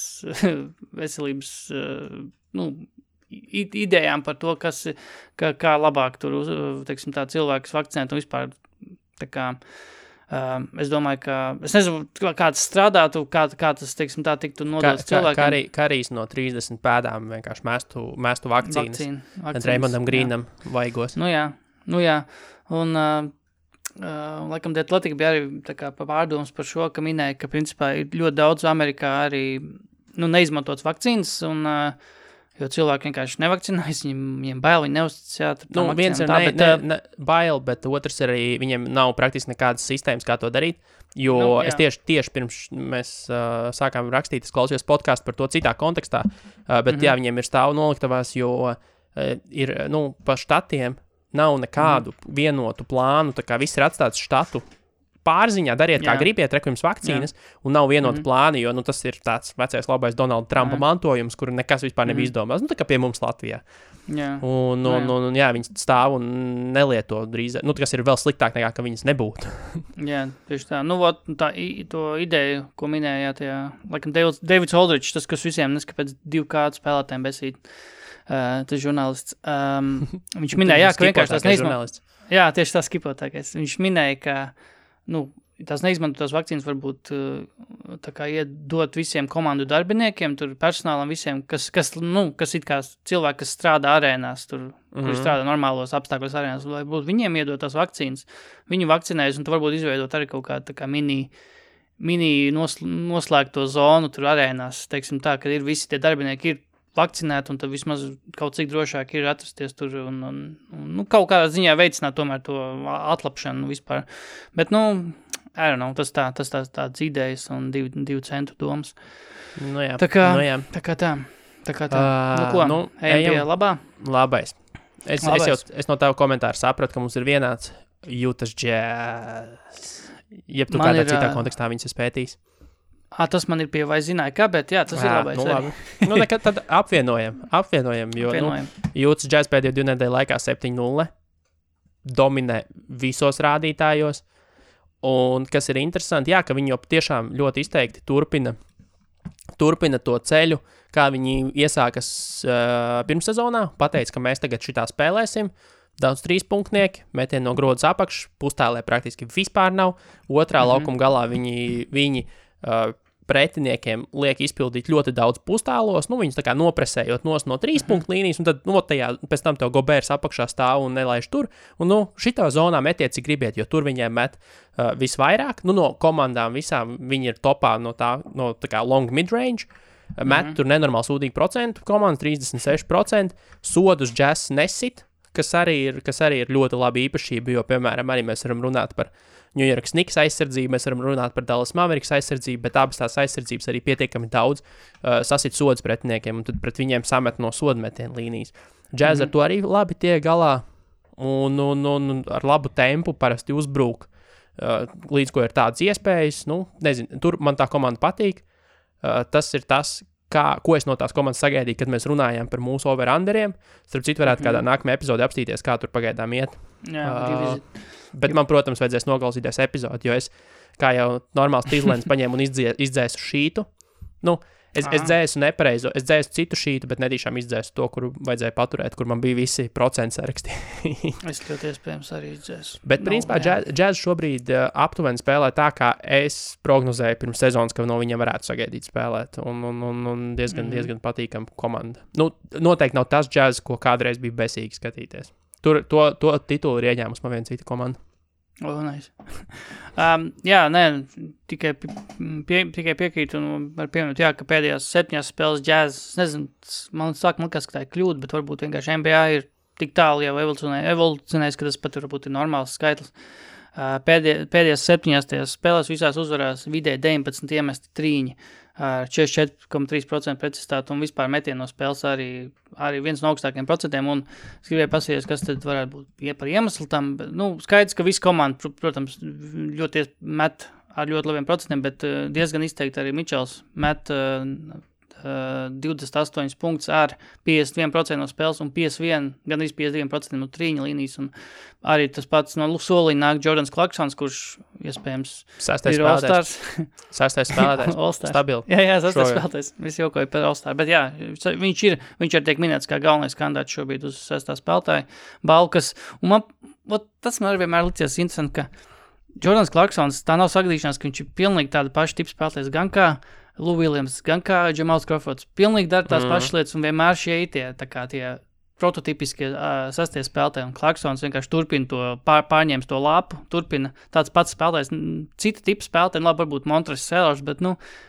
idejām par to, kā labāk tur, teiksim tā, cilvēkus vakcinēt un vispār, tā kā, es domāju, ka, es nezinu, kā tas strādātu, kā tas, teiksim tā, tiktu nodots cilvēkiem. Karīs no 30 pēdām vienkārši mēstu vakcīnas. Raymondam Grīnam vaigos. Nu jā. Un, laikam, The Athletic bija arī tā kā pārdomas par šo, ka minēja, ka principā ir ļoti daudz Amerikā arī, neizmantots vakcīnas, un jo cilvēki vienkārši nevakcinējas, viņiem bail, viņi neuzticas, viens ir bail, bet otrs arī viņiem nav praktiski nekādas sistēmas, kā to darīt, jo es tieši pirms mēs sākām rakstīt, es klausījos podcastu par to citā kontekstā, bet viņiem ir stāvu noliktavās, jo ir, pa štatiem nav nekādu vienotu plānu, tā kā viss ir atstāts štatu pārziņā, dariet, kā gribiet, jums vakcīnas, un nav vienota plāni, jo tas ir tāds vecais labais Donalda Trumpa mantojums, kuru nekas vispār nebija izdomās, tā kā pie mums Latvijā. Un viņi stāv un nelieto drīz, kas ir vēl sliktāk nekā, ka viņas nebūtu. Jā, tieši tā. To ideju, ko minējāt, laikam Davids Aldridge, tas, kas visiem neskapēc 2K spēlētājiem besīt, tas žurnālists, viņš minēja, ka vienkārši tas neizmantot. Jā, tieši tā skipotākais. Viņš minēja, ka tās neizmantotās vakcīnas varbūt tā kā iedot visiem komandu darbiniekiem, tur personālam visiem, kas it kā cilvēki, kas strādā arēnās, tur, kuri strādā normālos apstākļos arēnās, lai būtu viņiem iedot tās vakcīnas, viņu vakcinējas, un tu varbūt izveidot arī kaut kā tā kā mini noslēgto zonu tur arēnās, teiksim tā, ka ir visi tie darbinieki ir vakcinēti, un tad vismaz kaut cik drošāk ir atrasties tur un kaut kādā ziņā veicināt tomēr to atlapšanu vispār. Bet, I don't know, tas tāds idejas un 2 centu domas. Tā kā tā. Ejam pie labā? Labais. Es no tava komentāra sapratu, ka mums ir vienāds Utah Jazz. Jeb tu kādā citā kontekstā viņas ir spētījis? Tas man ir pie vai zināja, kā, bet jā, tas ir labais. Labi. Nekad tad apvienojam, jo Jūtas Jazz pēdējo 2 nedēļu laikā 7-0 dominē visos rādītājos, un kas ir interesanti, ka viņi jau tiešām ļoti izteikti turpina to ceļu, kā viņi iesākas pirmssezonā, pateica, ka mēs tagad šitā spēlēsim, daudz 3-punktnieki, metieni no grodas apakš, pustēlē praktiski vispār nav, otrā laukuma galā viņi pretiniekiem liek izpildīt ļoti daudz pustēlos, viņus tā kā nopresējot no 3-punktu līnijas, un tad pēc tam tev Gobērs apakšā stāv un nelaiž tur, un šitā zonā metiet, cik gribiet, jo tur viņiem met visvairāk, no komandām visām viņi ir topā no tā kā long mid-range, met tur nenormāli sūdīgi procentu, komandas 36%, sodus Jazz nesit, kas arī ir ļoti labi īpašība, jo, piemēram, arī mēs varam runāt par New York Knicks aizsardzību, mēs varam runāt par Dallas Mavericks aizsardzību, bet abas tās aizsardzības arī pietiekami daudz sasit sodus pretiniekiem, un tad pret viņiem samet no sodmetienu līnijas. Jazz ar to arī labi tiek galā, un ar labu tempu parasti uzbrūk, līdz ko ir tādas iespējas, nezinu, tur man tā komanda patīk, tas ir tas, ko es no tās komandas sagaidīju, kad mēs runājām par mūsu over-underiem. Starp citu, varētu kādā nākamajā epizodē apstīties, kā tur pagaidām iet. Bet man, protams, vajadzēs noklausīties epizodi, jo es, kā jau normāls tīzlēns, paņēmu un izdzēsu šītu. Es dzēsu nepareizo, es dzēsu citu šītu, bet nedīšām izdzēsu to, kuru vajadzēja paturēt, kur man bija visi procentu saraksti. Es ļoti iespējams arī izdzēsu. Bet, principā, Jazz šobrīd aptuveni spēlē tā, kā es prognozēju pirms sezonas, ka no viņiem varētu sagaidīt spēlēt, un diezgan patīkama komanda. Noteikti nav tas Jazz, ko kādreiz bija besīgi skatīties. To titulu ir ieņēmus man viena cita komanda. Nice. Tikai piekrītu un var pieminēt, ka pēdējās 7 spēles Jazz, nezinu, man liekas, ka tā ir kļūda, bet varbūt vienkārši NBA ir tik tālu jau evolucionējis, ka tas pat varbūt ir normāls skaitlis. Pēdējās 7 spēlēs visās uzvarās vidēji 19 iemesti trīņi ar 44,3% precizitāti un vispār metienu no spēles arī viens no augstākiem procentiem, un es gribēju pasīties, kas tad varētu būt par iemeslu tam, bet, skaidrs, ka visa komanda, protams, ļoti met ar ļoti labiem procentiem, bet diezgan izteikti arī Mičels met 28 punktus ar 51% no spēles un 52% no trīņa līnijas, un arī tas pats no soliņa nāk Jordans Clarksons, kurš iespējams ir All-Stars. Sastais spēlētājs. Stabili. Jā, sastais spēlētājs. Visi jokoja par All-Star, bet jā, viņš ir tiek minēts kā galvenais kandidāts šobrīd uz sastā spēlētāja balkas, un tas man arī vienmēr licies interesanti, ka Jordans Clarksons, tā nav sagadīšanās, ka viņš ir pilnīgi tāda paša tipa spēlētājs, gan kā Lou Williams, gan kā Jamals Crawfords, pilnīgi dara tās pašas lietas, un vienmēr šie tie prototipiskie sastie spēlētāji, un Clarksons vienkārši turpina to, pārņēmis to lapu, turpina tāds pats spēlētājs, cita tipa spēlētāji, labi, varbūt Montres Sellers, bet,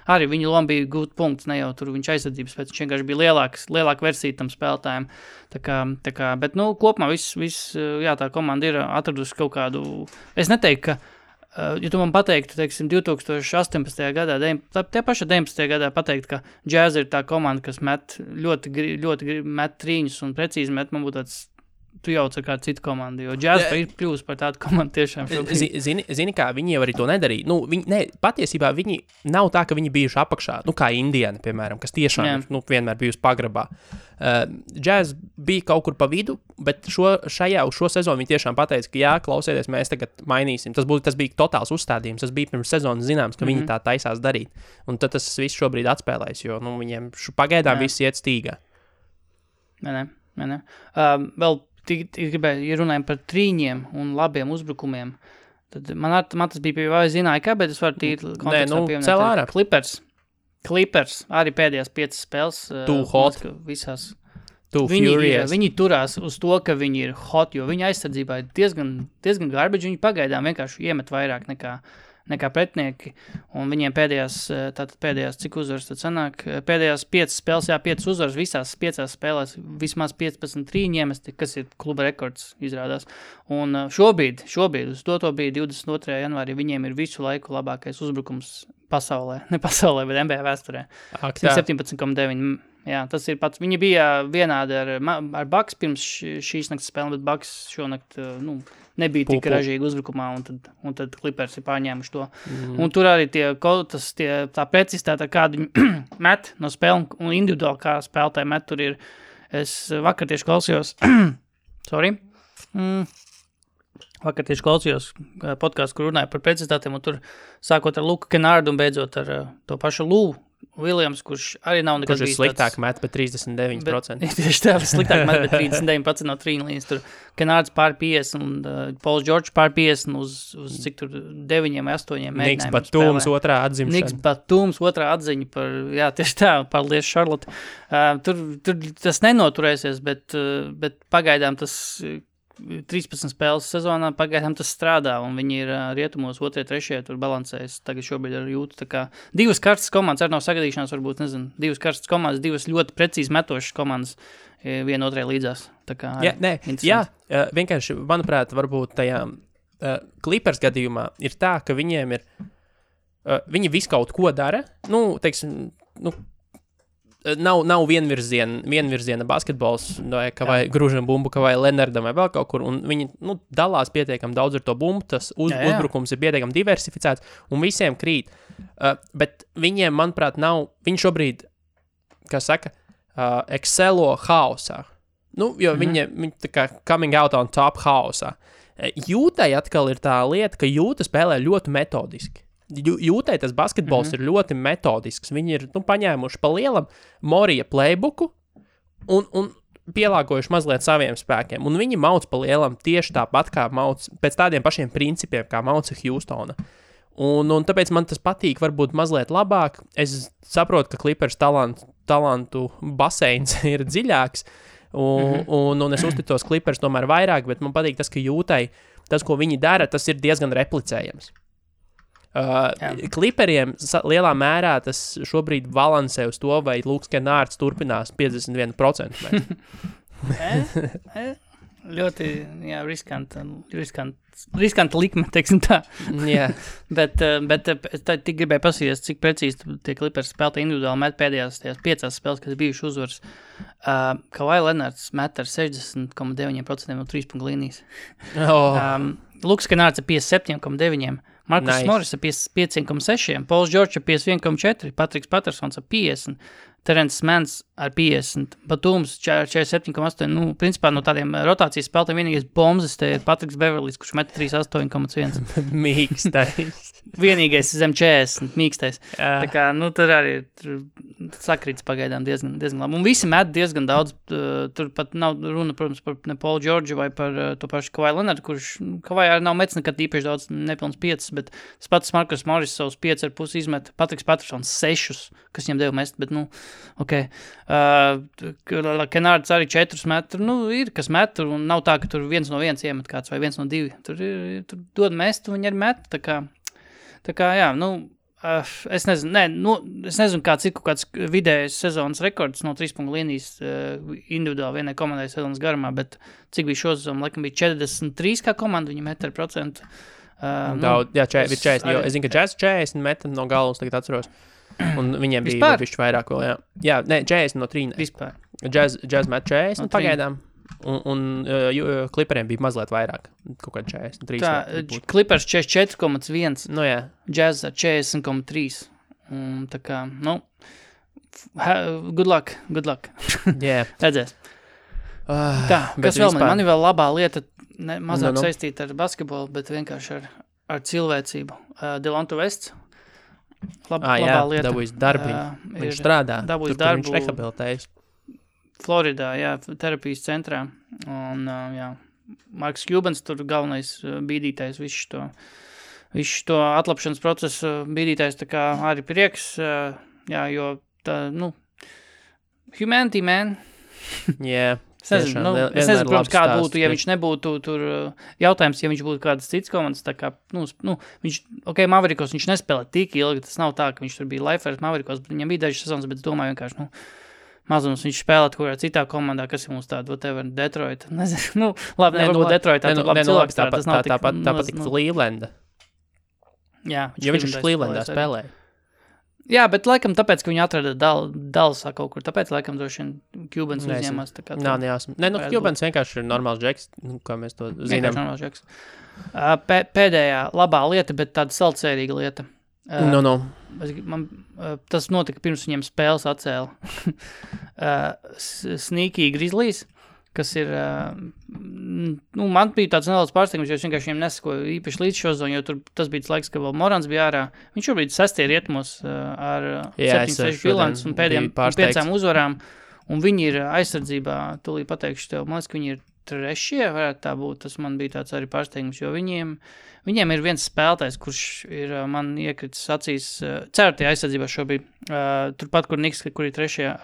arī viņa loma bija gūt punkts, ne jau tur viņš aizsardzības, bet viņš vienkārši bija lielāka versija tam spēlētājiem, tā kā, bet, kopumā viss, tā komanda ir atradusi kaut kādu, es neteiktu, ka ja tu man pateiktu, teiksim, 2018. gadā, tie paši 19. gadā pateikt, ka Jazz ir tā komanda, kas met ļoti met trīņus un precīzi met, man būtu tāds, tu jauc ar kādu citu komandu, jo Jazz ir kļūst par tādu komandu tiešām. Zini kā, viņi jau arī to nedarīja. Patiesībā viņi nav tā, ka viņi bijuši apakšā, kā Indiana, piemēram, kas tiešām vienmēr bijusi pagrabā. Jazz bija kaut kur pa vidu, bet šo sezonu viņi tiešām pateica, ka jā, klausieties, mēs tagad mainīsim. Tas bija totāls uzstādījums, tas bija pirms sezonas zināms, ka viņi tā taisās darīt. Un tad tas viss šobrīd atspēlēs, jo viņiem pagaidām viss iet stīgā. Ne. Vēl gribēju, ja runājam par trīņiem un labiem uzbrukumiem, tad man tas bija pie vai zināja, kā, bet es varu tīri kontekstā pieminēt. Clippers arī pēdējās 5 spēles. Too hot. Visās. Too furious. Viņi turās uz to, ka viņi ir hot, jo viņa aizsardzībā ir diezgan garbage, viņi pagaidām vienkārši iemet vairāk nekā pretinieki, un viņiem pēdējās cik uzvaras tad sanāk, pēdējās 5 spēles, 5 uzvaras, visās 5 spēlēs vismaz 15 trīņiem, kas ir kluba rekords izrādās, un šobrīd, uz to bija 22. janvārī, viņiem ir visu laiku labākais uzbrukums pasaulē, ne pasaulē, bet NBA vēsturē. 17,9 Jā, tas ir pats. Viņi bija vienādi ar Bucks pirms šīs naktas spēle, bet Bucks šonakt nebija tik ražīgi uzbrukumā, un tad Clippers ir pārņēmuši to. Un tur arī tā precizitāte, kādu viņi met no spēle, un individuāli kā spēlētāji met, tur ir. Es vakar tieši klausījos, Vakar tieši klausījos podcastu, kur runāja par precizitātēm, un tur sākot ar Luku Kennārdu un beidzot ar to pašu Lou Williams, kurš arī nav nekad bijis tāds... Kurš ir sliktāk met, bet 39%. Tieši tā, sliktāk met, bet 39% no trīna līnijas. Tur Kennārds pār 50 un Pauls George pār 50 uz cik tur 9 vai 8 mēģinājumiem. Niks Batums otrā atzimšana. Niks Batums otrā atziņa par, jā, tieši tā, paldies Charlotte. Tur tas nenoturēsies, bet pagaidām tas 13 spēles sezonā, pagaidām tas strādā, un viņi ir rietumos 2, 3, tur balansējas, tagad šobrīd ar jūtu, tā kā 2 karstas komandas, arī nav sagadīšanās, varbūt, nezinu, 2 karstas komandas, 2 ļoti precīzi metošas komandas, viena otrai līdzās, tā kā vienkārši, manuprāt, varbūt tajā Clippers gadījumā ir tā, ka viņiem ir, viņi visu kaut ko dara, nav vienvirziena basketbols, vai Gružam bumbu, vai Lenardam, vai vēl kaut kur, un viņi dalās pietiekam daudz ar to bumbu, tas uzbrukums ir pietiekam diversificēts, un visiem krīt. Bet viņiem, manuprāt, viņi šobrīd, kā saka, excelo hausā. Jo viņi tā kā coming out on top hausā. Jūtai atkal ir tā lieta, ka Jūta spēlē ļoti metodiski. Jūtai tas basketbols ir ļoti metodisks. Viņi ir paņēmuši pa lielam Morija playbooku un pielāgojuši mazliet saviem spēkiem. Un viņi mauc pa lielam tieši tāpat, kā mauc pēc tādiem pašiem principiem, kā mauca Houstona. Un tāpēc man tas patīk varbūt mazliet labāk. Es saprotu, ka Clippers talantu baseins ir dziļāks, un es uzticos Clippers tomēr vairāk, bet man patīk tas, ka Jūtai, tas, ko viņi dara, tas ir diezgan replicējams. Clipperiem lielā mērā tas šobrīd balansē uz to, vai Luks Kennārds turpinās 51%. Ļoti, jā, riskanta likme, teiksim tā. Yeah. bet tik gribēju pasīties, cik precīzi tie Clippers spēlētāji individuāli met pēdējās 5 spēles, kas bijuši uzvaras. Kawhi Leonards met ar 60,9% no 3 punktu līnijas. Luks Kennārds ar 57,9%. Markus Morris ar 55,6%, Pauls George ar 51,4%, Patriks Pattersons ar 50%, Terence Manns ar 50%, Batums 47,8%. Principā no tādiem rotācijas spēlētājiem vienīgais bombzes te ir Patriks Beverlijs, kurš met 38,1%. Mīkstais. Vienīgais zem 40, mīkstais. Tā kā, tur arī sakrīts pagaidām diezgan labi. Un visi met diezgan daudz. Tur pat nav runa, protams, par ne Paulu George vai par to pašu Kawhi Leonardu, kurš Kawhi arī nav metis nekad īpaši daudz, nepilns 5, bet tas pats Markus Morris savus 5,5 izmet, Patriks Pattersons 6, kas viņam deva mest, bet ok. Kennārds arī 4 met, ir kas met, un nav tā, ka tur 1 no 1 iemet kāds vai 1 no 2. Tur dod mest, un viņi arī met, tā kā jā, es nezinu, kāds ir kaut kāds vidējais sezonas rekords no 3 punktu līnijas individuāli vienai komandai sezonas garumā, bet cik bija šo sezonu, laikam bija 43 kā komanda, viņi met ar procentu. Daudz, jā, 40, jo es zinu, ka Jazz 40 met no galvas, tagad atceros. Un viņiem bija bišķi vairāk vēl, jā. Jā, 40 no 3. Vispār. Jazz met 40 no pagaidām. Un Clipperiem bija mazliet vairāk, kaut kā 43. Tā, Clippers 44,1, jā. Jazz 40,3. Tā kā, good luck. Yeah. Redzēs. Tā, kas vēl man ir vēl labā lieta, mazāk saistīta ar basketbolu, bet vienkārši ar cilvēcību. Delonte Wests. Labā lieta. Dabūjis darbiņu. Viņš strādā. Dabūjis darbu. Viņš rehabilitējas. Floridā, jā, terapijas centrā. Un, jā, Marks Cubans tur galvenais bīdītājs visu to atlapšanas procesu bīdītājs, tā kā arī prieks, jā, jo tā, humanity, man. Yeah. Es nezinu, protams, kāda būtu, ja viņš nebūtu tur, jautājums, ja viņš būtu kādas cits komandas, tā kā, viņš, Mavericos viņš nespēlē tik ilgi, tas nav tā, ka viņš tur bija Lifers Mavericos, bet viņam bija dažas sezonas, bet es domāju vienkārši, mazums viņš spēlēt kurā citā komandā, kas ir mums tāda, whatever, Detroit, nezinu, labi, nevarbūt Detroit, tā labi cilvēks, tas nav tik. Tāpat Clevelanda. Jā. Jo viņš Clevelandā spēlēja. Jā, bet laikam tāpēc, ka viņi atrada Dallasā kaut kur, tāpēc laikam droši vien Cubans uzņēmās. Nav nejāsam. Cubans vienkārši ir normāls džeks, kā mēs to zinām. Vienkārši normāls džeks. Pēdējā labā lieta, bet tāda saldsērīga lieta. Tas notika pirms viņiem spēles atcēla. Sneaky Grizzlies, kas ir, man bija tāds nedaudz pārsteigums, jo es vienkārši viņiem nesakoju īpaši līdz šo zonu, jo tas bija tas laiks, ka vēl Morans bija ārā. Viņš šobrīd 6. rietumos ar 7-6 bilants un pēdējām 5 uzvarām, un viņi ir aizsardzībā, tūlīt pateikšu tev, man liekas, ka viņi ir 3. varētu tā būt, tas man bija tāds arī pārsteigums, jo viņiem ir viens spēlētājs, kurš ir man iekritis acīs 4. aizsardzībā šobrīd, turpat, kur Niks, kur ir 3.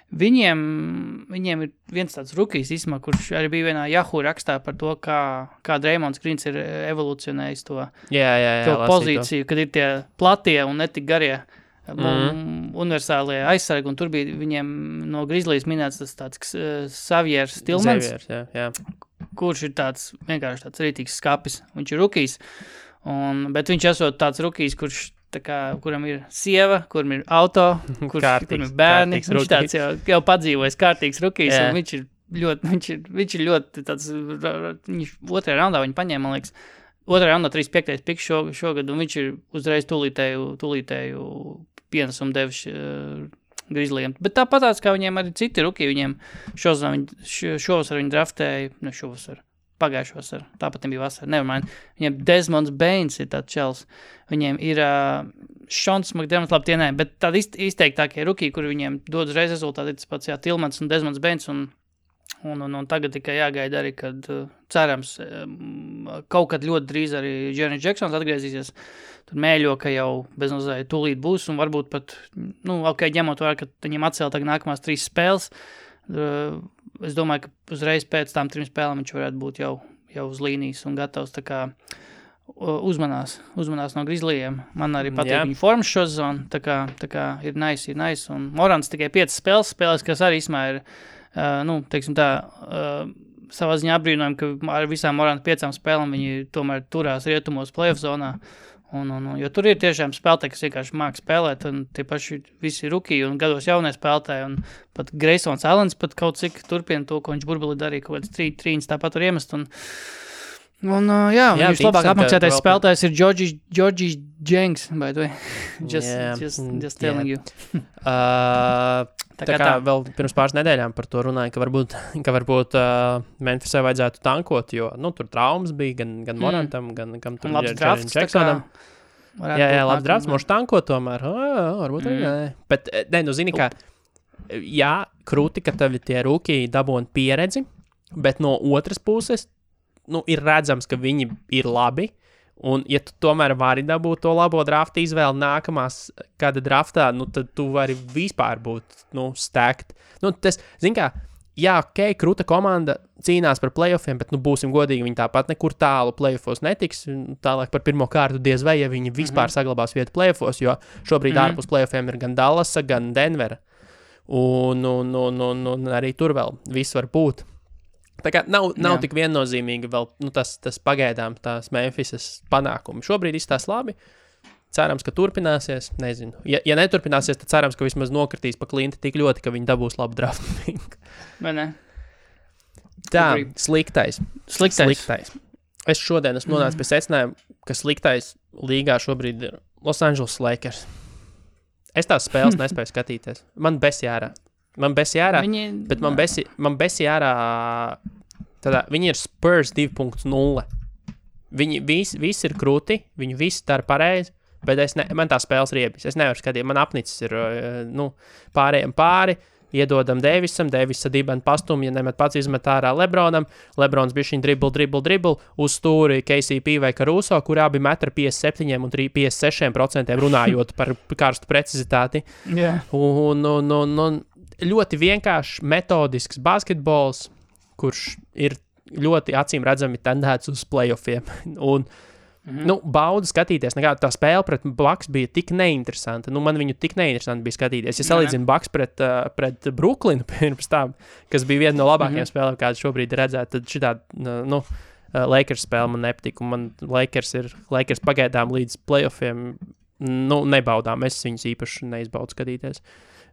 Viņiem ir viens tāds rukijs īsumā, kurš arī bija vienā Yahoo rakstā par to, kā Draymonds Greens ir evolucionējis to pozīciju, kad ir tie platie un netik garie universālie aizsargi, un tur bija viņiem no Grizzlies minēts tas tāds Xaviers Tillmans, kurš ir tāds vienkārši tāds rītīgs skapis. Viņš ir rukijs, bet viņš esot tāds rukijs, kuram ir sieva, kuram ir auto, kuram ir bērni. Viņš tāds jau padzīvojis kārtīgs rukijs, un viņš ir ļoti tāds, viņš 2. raundā viņu paņēma, man liekas, 2. raundā 35. piks šogad, un viņš ir uzreiz tūlītēju pienesumu devis Grizzlyiem. Bet tāpatās, kā viņiem arī citi rukiji, viņiem šovasar viņi draftēja, pagājušo vasaru, tāpat bija vasara, nevermind. Viņiem Desmonds Bains ir tāds čels, viņiem ir Šons McDermott, labi tie nē, bet tādi izteiktākie rukiji, kuri viņiem dod uzreiz rezultāti, tas pats Tillmans un Desmonds Bains, un tagad tikai jāgaida arī, kad cerams, kaut kad ļoti drīz arī Jaren Jacksons atgriezīsies, tur mēļo, ka jau beznozēja tūlīt būs, un varbūt pat, ņemot vērā, ka viņiem atcēla tagad nākamās 3 spēles, es domāju, ka uzreiz pēc tām 3 spēlēm viņš varētu būt jau uz līnijas un gatavs, tā kā uzmanās no Grizzlyiem. Man arī patīk viņa formas šo zonu, tā kā ir nice, un Morans tikai 5 spēles, kas arī īsmā ir, teiksim tā, savā ziņā apbrīnojam, ka ar visām Morana 5 spēlēm viņi tomēr turās rietumos playoff zonā, jo tur ir tiešām spēlētāji, kas vienkārši māk spēlēt, un tie paši visi rukiji un gados jaunie spēlētāji, un pat Graysons Allens pat kaut cik turpina to, ko viņš burbuli darīja, kaut kāds 3 tāpat var iemest, un viņš labāk apmaksātais spēlētājs ir Georgie Jenks, by the way. Just telling you. Tā kā vēl pirms pāris nedēļām par to runāja, ka varbūt Memphisai vajadzētu tankot, jo, tur traumas bija gan Morantam, gan kam tur ir Jaren Jacksonam. Labs drafts, moši tankot tomēr. Varbūt arī nē. Bet, zini kā, krūti, ka tevi tie rūkī dabūna pieredzi, bet no otras puses, ir redzams, ka viņi ir labi, un ja tu tomēr vari dabūt to labo drafta izvēli nākamās kāda draftā, tad tu vari vispār būt, stacked. Tas, zin kā, krūta komanda cīnās par playoffiem, bet, būsim godīgi, viņi tāpat nekur tālu playoffos netiks, tālāk par pirmo kārtu diez vai, ja viņi vispār saglabās vietu playoffos, jo šobrīd ārpus playoffiem ir gan Dallasa, gan Denvera, un arī tur vēl viss var būt. Tā kā nav tik viennozīmīgi vēl tas pagaidām tās Memphisas panākumi. Šobrīd izstās labi. Cerams, ka turpināsies. Nezinu. Ja neturpināsies, tad cerams, ka vismaz nokritīs pa klinti tik ļoti, ka viņi dabūs labu draftu. Vai ne? Tā, sliktais. Es šodien esmu nonācis pie secinājuma, ka sliktais līgā šobrīd ir Los Angeles Lakers. Es tās spēles nespēju skatīties. Man besi ārā. Bet man besi ārā, viņi ir Spurs 2.0. Viņi visi ir krūti, viņi visi dara pareizi, bet man tā spēles riebis. Es nevaru skatīt, man apnicis ir, pārējiem pāri, iedodam Davisam, Davisa dibeni pastumja, nemet pats izmet ārā Lebronam, Lebrons bišķiņ dribble, uz stūri KCP vai Caruso, kur abi metra 57 un 56% runājot par karstu precizitāti. Un ļoti vienkāršs, metodisks basketbols, kurš ir ļoti acīm redzami tendēts uz playoffiem. Un, baudu skatīties. Tā spēle pret Bucks bija tik neinteresanta. Man viņu tik neinteresanti bija skatīties. Ja salīdzinu Bucks pret Brooklynu pirms tam, kas bija viena no labākajām spēlēm, kāda šobrīd redzēt, tad šitā, Lakers spēle man nepatika. Man Lakers pagaidām līdz playoffiem nebaudām. Es viņus īpaši neizbaudu skatīties.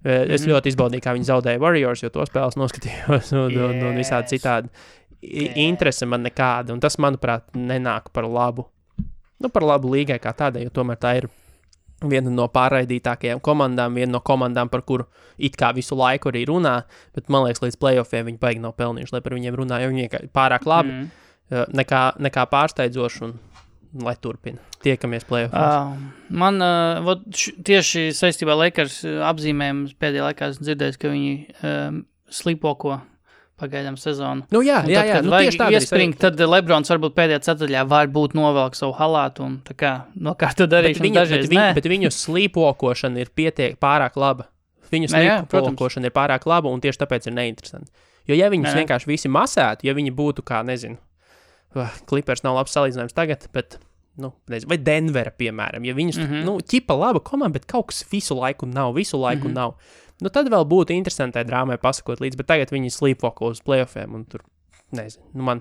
Es ļoti izbaudīju, kā viņi zaudēja Warriors, jo to spēles noskatījos un visādi citādi. Interese man nekāda, un tas, manuprāt, nenāk par labu. Par labu līgai kā tādai, jo tomēr tā ir viena no pārraidītākajām komandām, viena no komandām, par kuru it kā visu laiku arī runā, bet man liekas, līdz playoffiem viņi baigi nav pelnījuši, lai par viņiem runā, jo viņi pārāk labi, nekā pārsteidzoši, un lai turpina. Tiekamies playoffs. Man tieši saistībā Lakers apzīmējums pēdējā laikā esmu dzirdējis, ka viņi slīpoko pagaidām sezonu. Tieši tā iespringt, tad Lebrons varbūt pēdējā ceturdaļā varbūt novelk savu halātu un tā kā nokārto darīšanu dažreiz. Bet viņu slīpokošana ir pārāk laba. Viņu slīpokošana ir pārāk laba un tieši tāpēc ir neinteresanti. Jo ja viņus vienkārši visi masētu, ja viņi būtu kā, nezinu, Clippers nav labs salīdzinājums tagad, bet, nezinu, vai Denvera, piemēram, ja viņus, ķipa laba komanda, bet kaut kas visu laiku nav. Tad vēl būtu interesantai drāmai pasakot līdz, bet tagad viņi slīpoko uz playoffiem, un tur, nezinu, man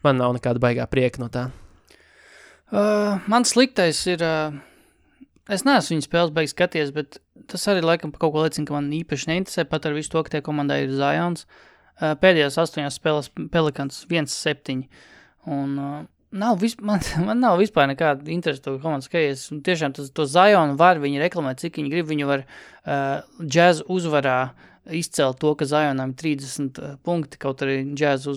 nav nekāda baigā prieka no tā. Man sliktais ir, es neesmu viņu spēles baigi skaties, bet tas arī laikam kaut ko liecina, ka man īpaši neinteresē, pat ar visu to, ka tie komandai ir Zions. Pēdējās 8 spēles Pelicans 1-7, un man nav vispār nekāda interesa to komandu skaties. Tiešām to Zionu var viņi reklamēt, cik viņi grib. Viņi var Jazz uzvarā izcelt to, ka Zionam 30 punkti, kaut arī Jazz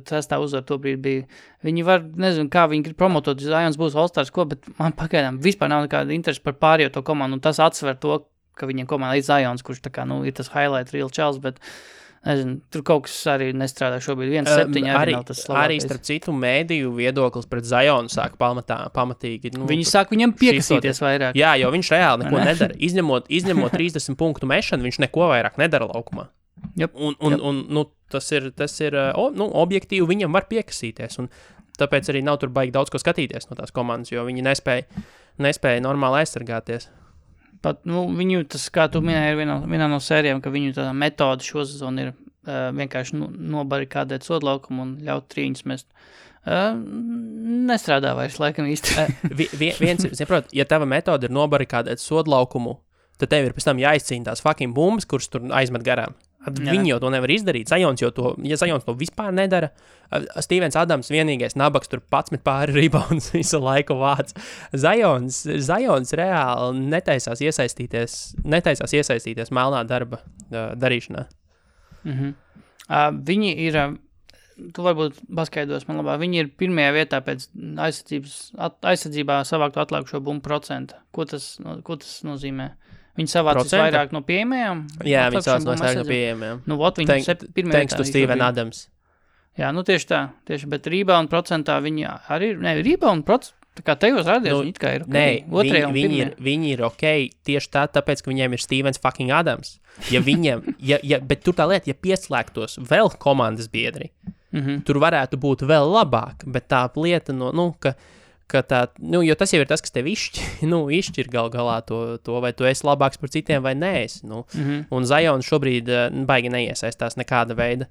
trestā uzvar to brīdi bija. Viņi var, nezinu, kā viņi grib promotot, Zions būs All-Stars, bet man pagaidām vispār nav nekāda interesa par pārējo to komandu, un tas atsver to, ka viņiem komanda ir Zions, kurš tā kā, ir tas highlight real čels, bet nezinu, tur kaut kas arī nestrādā šobrīd. 1-7 arī nav tas labākais. Arī starp citu mēdīju viedoklis pret Zionu sāk pamatīgi. Viņi sāk viņam piekasīties vairāk. Jā, jo viņš reāli neko nedara. Izņemot 30 punktu mešanu, viņš neko vairāk nedara laukumā. Yep. Un tas ir objektīvi viņam var piekasīties. Un tāpēc arī nav tur baigi daudz ko skatīties no tās komandas, jo viņi nespēja normāli aizsargāties. Pat, viņu, tas, kā tu minēji, ir vienā no sērijām, ka viņu tā metode šo sezonu ir vienkārši nobarikādēt sodlaukumu un ļaut trīņus mest. Nestrādā vairs, laikam īsti. Saprot, ja tava metode ir nobarikādēt sodlaukumu, tad tev ir pēc tam jāizcīna tās fucking bumbas, kuras tur aizmet garām. Viņi jau to nevar izdarīt. Zions to vispār nedara. Stevens Adams vienīgais nabaks tur 11 pāri rebounds visu laiku vāc. Zions reāli netaisās iesaistīties melnā darba darīšanā. Viņi ir, tu varbūt paskaidros man labāk, viņi ir pirmajā vietā pēc aizsardzībā savāktu atlikušo bumbu procentu. Ko tas nozīmē? Viņi savācis vairāk no pieejamajām? Jā, viņi savācis vairāk no pieejamajām. Thanks to Steven Adams. Jā, tieši tā. Bet rebound procentā viņi arī ir, rebound procentā, tā kā tajos rādījos, viņi it kā ir ok. Viņi ir ok tieši tāpēc, ka viņiem ir Stevens fucking Adams. Ja viņiem, bet tur tā lieta, ja pieslēgtos vēl komandas biedri, tur varētu būt vēl labāk, bet tā lieta, ka tā, jo tas jau ir tas, kas tev izšķir galā to, vai tu esi labāks par citiem vai nē. Un Zions šobrīd baigi neiesaistās nekāda veida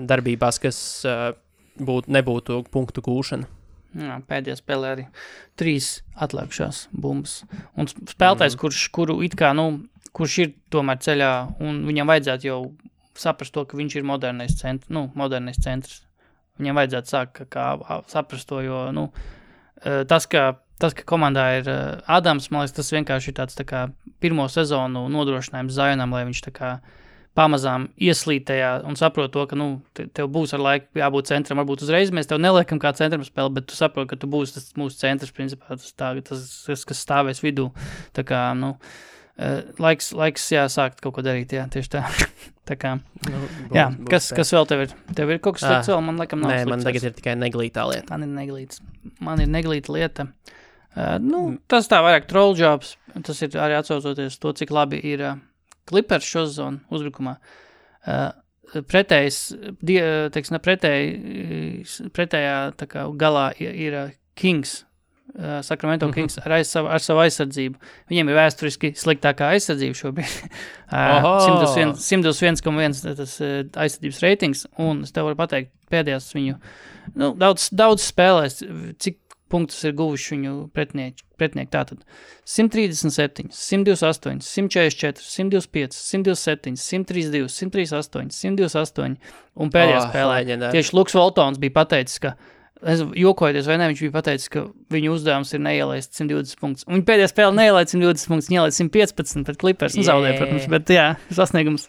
darbībās, kas nebūtu punktu gūšana. Jā, pēdējā spēlē arī 3 atlikušās bumbas. Un spēlētājs, kuru it kā, kurš ir tomēr ceļā, un viņam vajadzētu jau saprast to, ka viņš ir modernais centrs. Viņam vajadzētu sākt saprast to, jo, tas, ka komandā ir Adams, man liekas, tas vienkārši ir tāds tā kā pirmo sezonu nodrošinājums Zionam, lai viņš tā kā pamazām ieslīd tajā un saprot to, ka, tev būs ar laiku jābūt centram, varbūt uzreiz mēs tev neliekam kā centram spēli, bet tu saprot, ka tu būsi tas mūsu centrs, principā, tas kas stāvēs vidū. Tā kā, laiks jāsākt kaut ko darīt, jā, tieši tā. Tā kā, jā, kas vēl tev ir? Tev ir kaut kas slikts vēl? Man laikam nav slikts. Nē, man tagad ir tikai neglītā lieta. Man ir neglīta lieta. Tas tā vairāk troll jobs. Tas ir arī atsaucoties to, cik labi ir Clippers šo sezonu uzbrukumā. Pretējā tā kā galā ir Kings. Sacramento Kings ar savu aizsardzību. Viņiem ir vēsturiski sliktākā aizsardzība šobrīd. 121,1 tas aizsardzības reitings, un es tev varu pateikt, pēdējās viņu daudz spēlēs, cik punktus ir guvuši viņu pretinieki. Tātad 137, 128, 144, 125, 127, 132, 138, 128 un pēdējā spēlē. Tieši Luks Voltons bija pateicis, ka jokojoties vai ne, viņš bija pateicis, ka viņu uzdevums ir neielaist 120 punktus. Un viņa pēdējā spēle neielaid 120 punktus, viņa ielaid 115 pret Clippers. Zaudēja, protams, bet jā, sasniegums.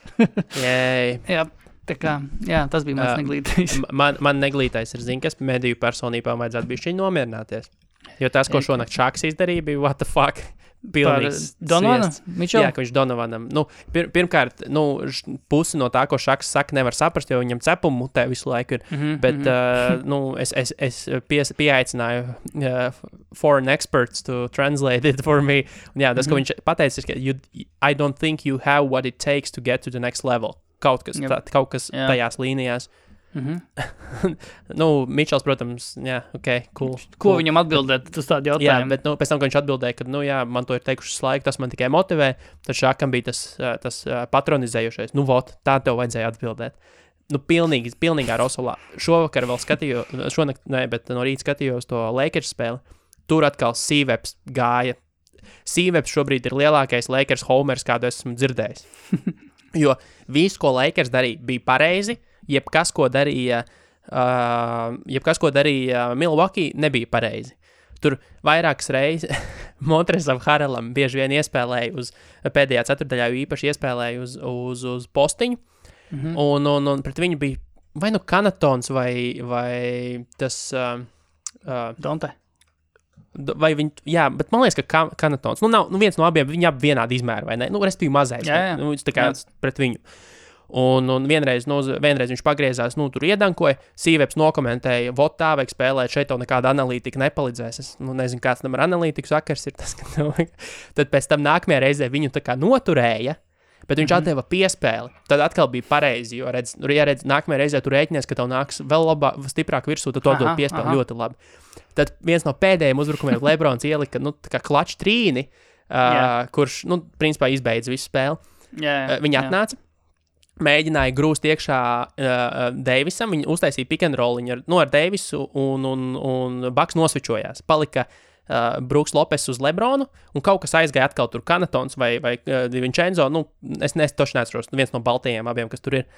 Jā. Tā kā, jā, tas bija mans neglītais. Man neglītais ir, kas mediju personībām vajadzētu bišķiņ nomierināties. Jo tas, ko šonakt Šaks izdarīja, bija what the fuck. Pilnīgs Donovana? Jā, ka viņš Donovanam. Pirmkārt, pusi no tā, ko Šaks saka, nevar saprast, jo viņam cepumu mutē visu laiku ir. Bet, es pieaicināju foreign experts to translate it for me. Un jā, tas, ko viņš pateicis, ka I don't think you have what it takes to get to the next level. Kaut kas tajās līnijās. Mičels, protams, jā, cool. Ko viņam atbildēt, tas tādi jautājumi? Jā, bet pēc tam, ka viņš atbildēja, ka, man to ir teikuši laiku, tas man tikai motivē, tad Šakam bija tas patronizējušais. Tā tev vajadzēja atbildēt. Pilnīgā rosolā. Šovakar vēl skatījos, bet no rīta skatījos to Lakers spēli. Tur atkal Sīveps gāja. Sīveps šobrīd ir lielākais Lakers homers, kādu esmu dzirdējis. Jo viss, ko Lakers darīja, bija pareizi, jebkas, ko darīja Milwaukee, nebija pareizi. Tur vairākas reizes Montrezam Harrelam bieži vien iespēlēja uz pēdējā ceturdaļā, jo īpaši iespēlēja uz postiņu, un pret viņu bija vai Kanatons vai tas... Donte. Vai viņi, jā, bet man liekas, ka Kanatons, nav viens no abiem, viņi abi vienādi izmēri, vai ne? Respektīvi mazais, tā kā pret viņu. Un vienreiz viņš pagriezās, tur iedankoja, Sīveps nokomentēja, tā vajag spēlēt, šeit tev nekāda analītika nepalīdzēs. Es nezinu, kāds tam ar analītiku sakars ir tas, ka tad pēc tam nākamajā reizē viņu tā kā noturēja, bet viņš atdeva piespēli. Tad atkal bija pareizi, jo redz, nākamajā reizē tu rēķinies, ka tev nāks vēl stiprāk virsū, tad tu atdod piespēli ļoti labi. Tad viens no pēdējiem uzbrukumiem Lebrons ielika, tā kā klačs trīni, kurš, principā izbeidz visu spēli. Viņi atnāca, mēģināja grūst iekšā Deivisam, viņi uztaisīja pick and roll ar Deivisu un Baks nosvičojās. Palika Brooks Lopes uz Lebronu, un kaut kas aizgāja atkal tur Kanatons vai Vincenzo, es toši neatceros, viens no baltajiem abiem, kas tur ir,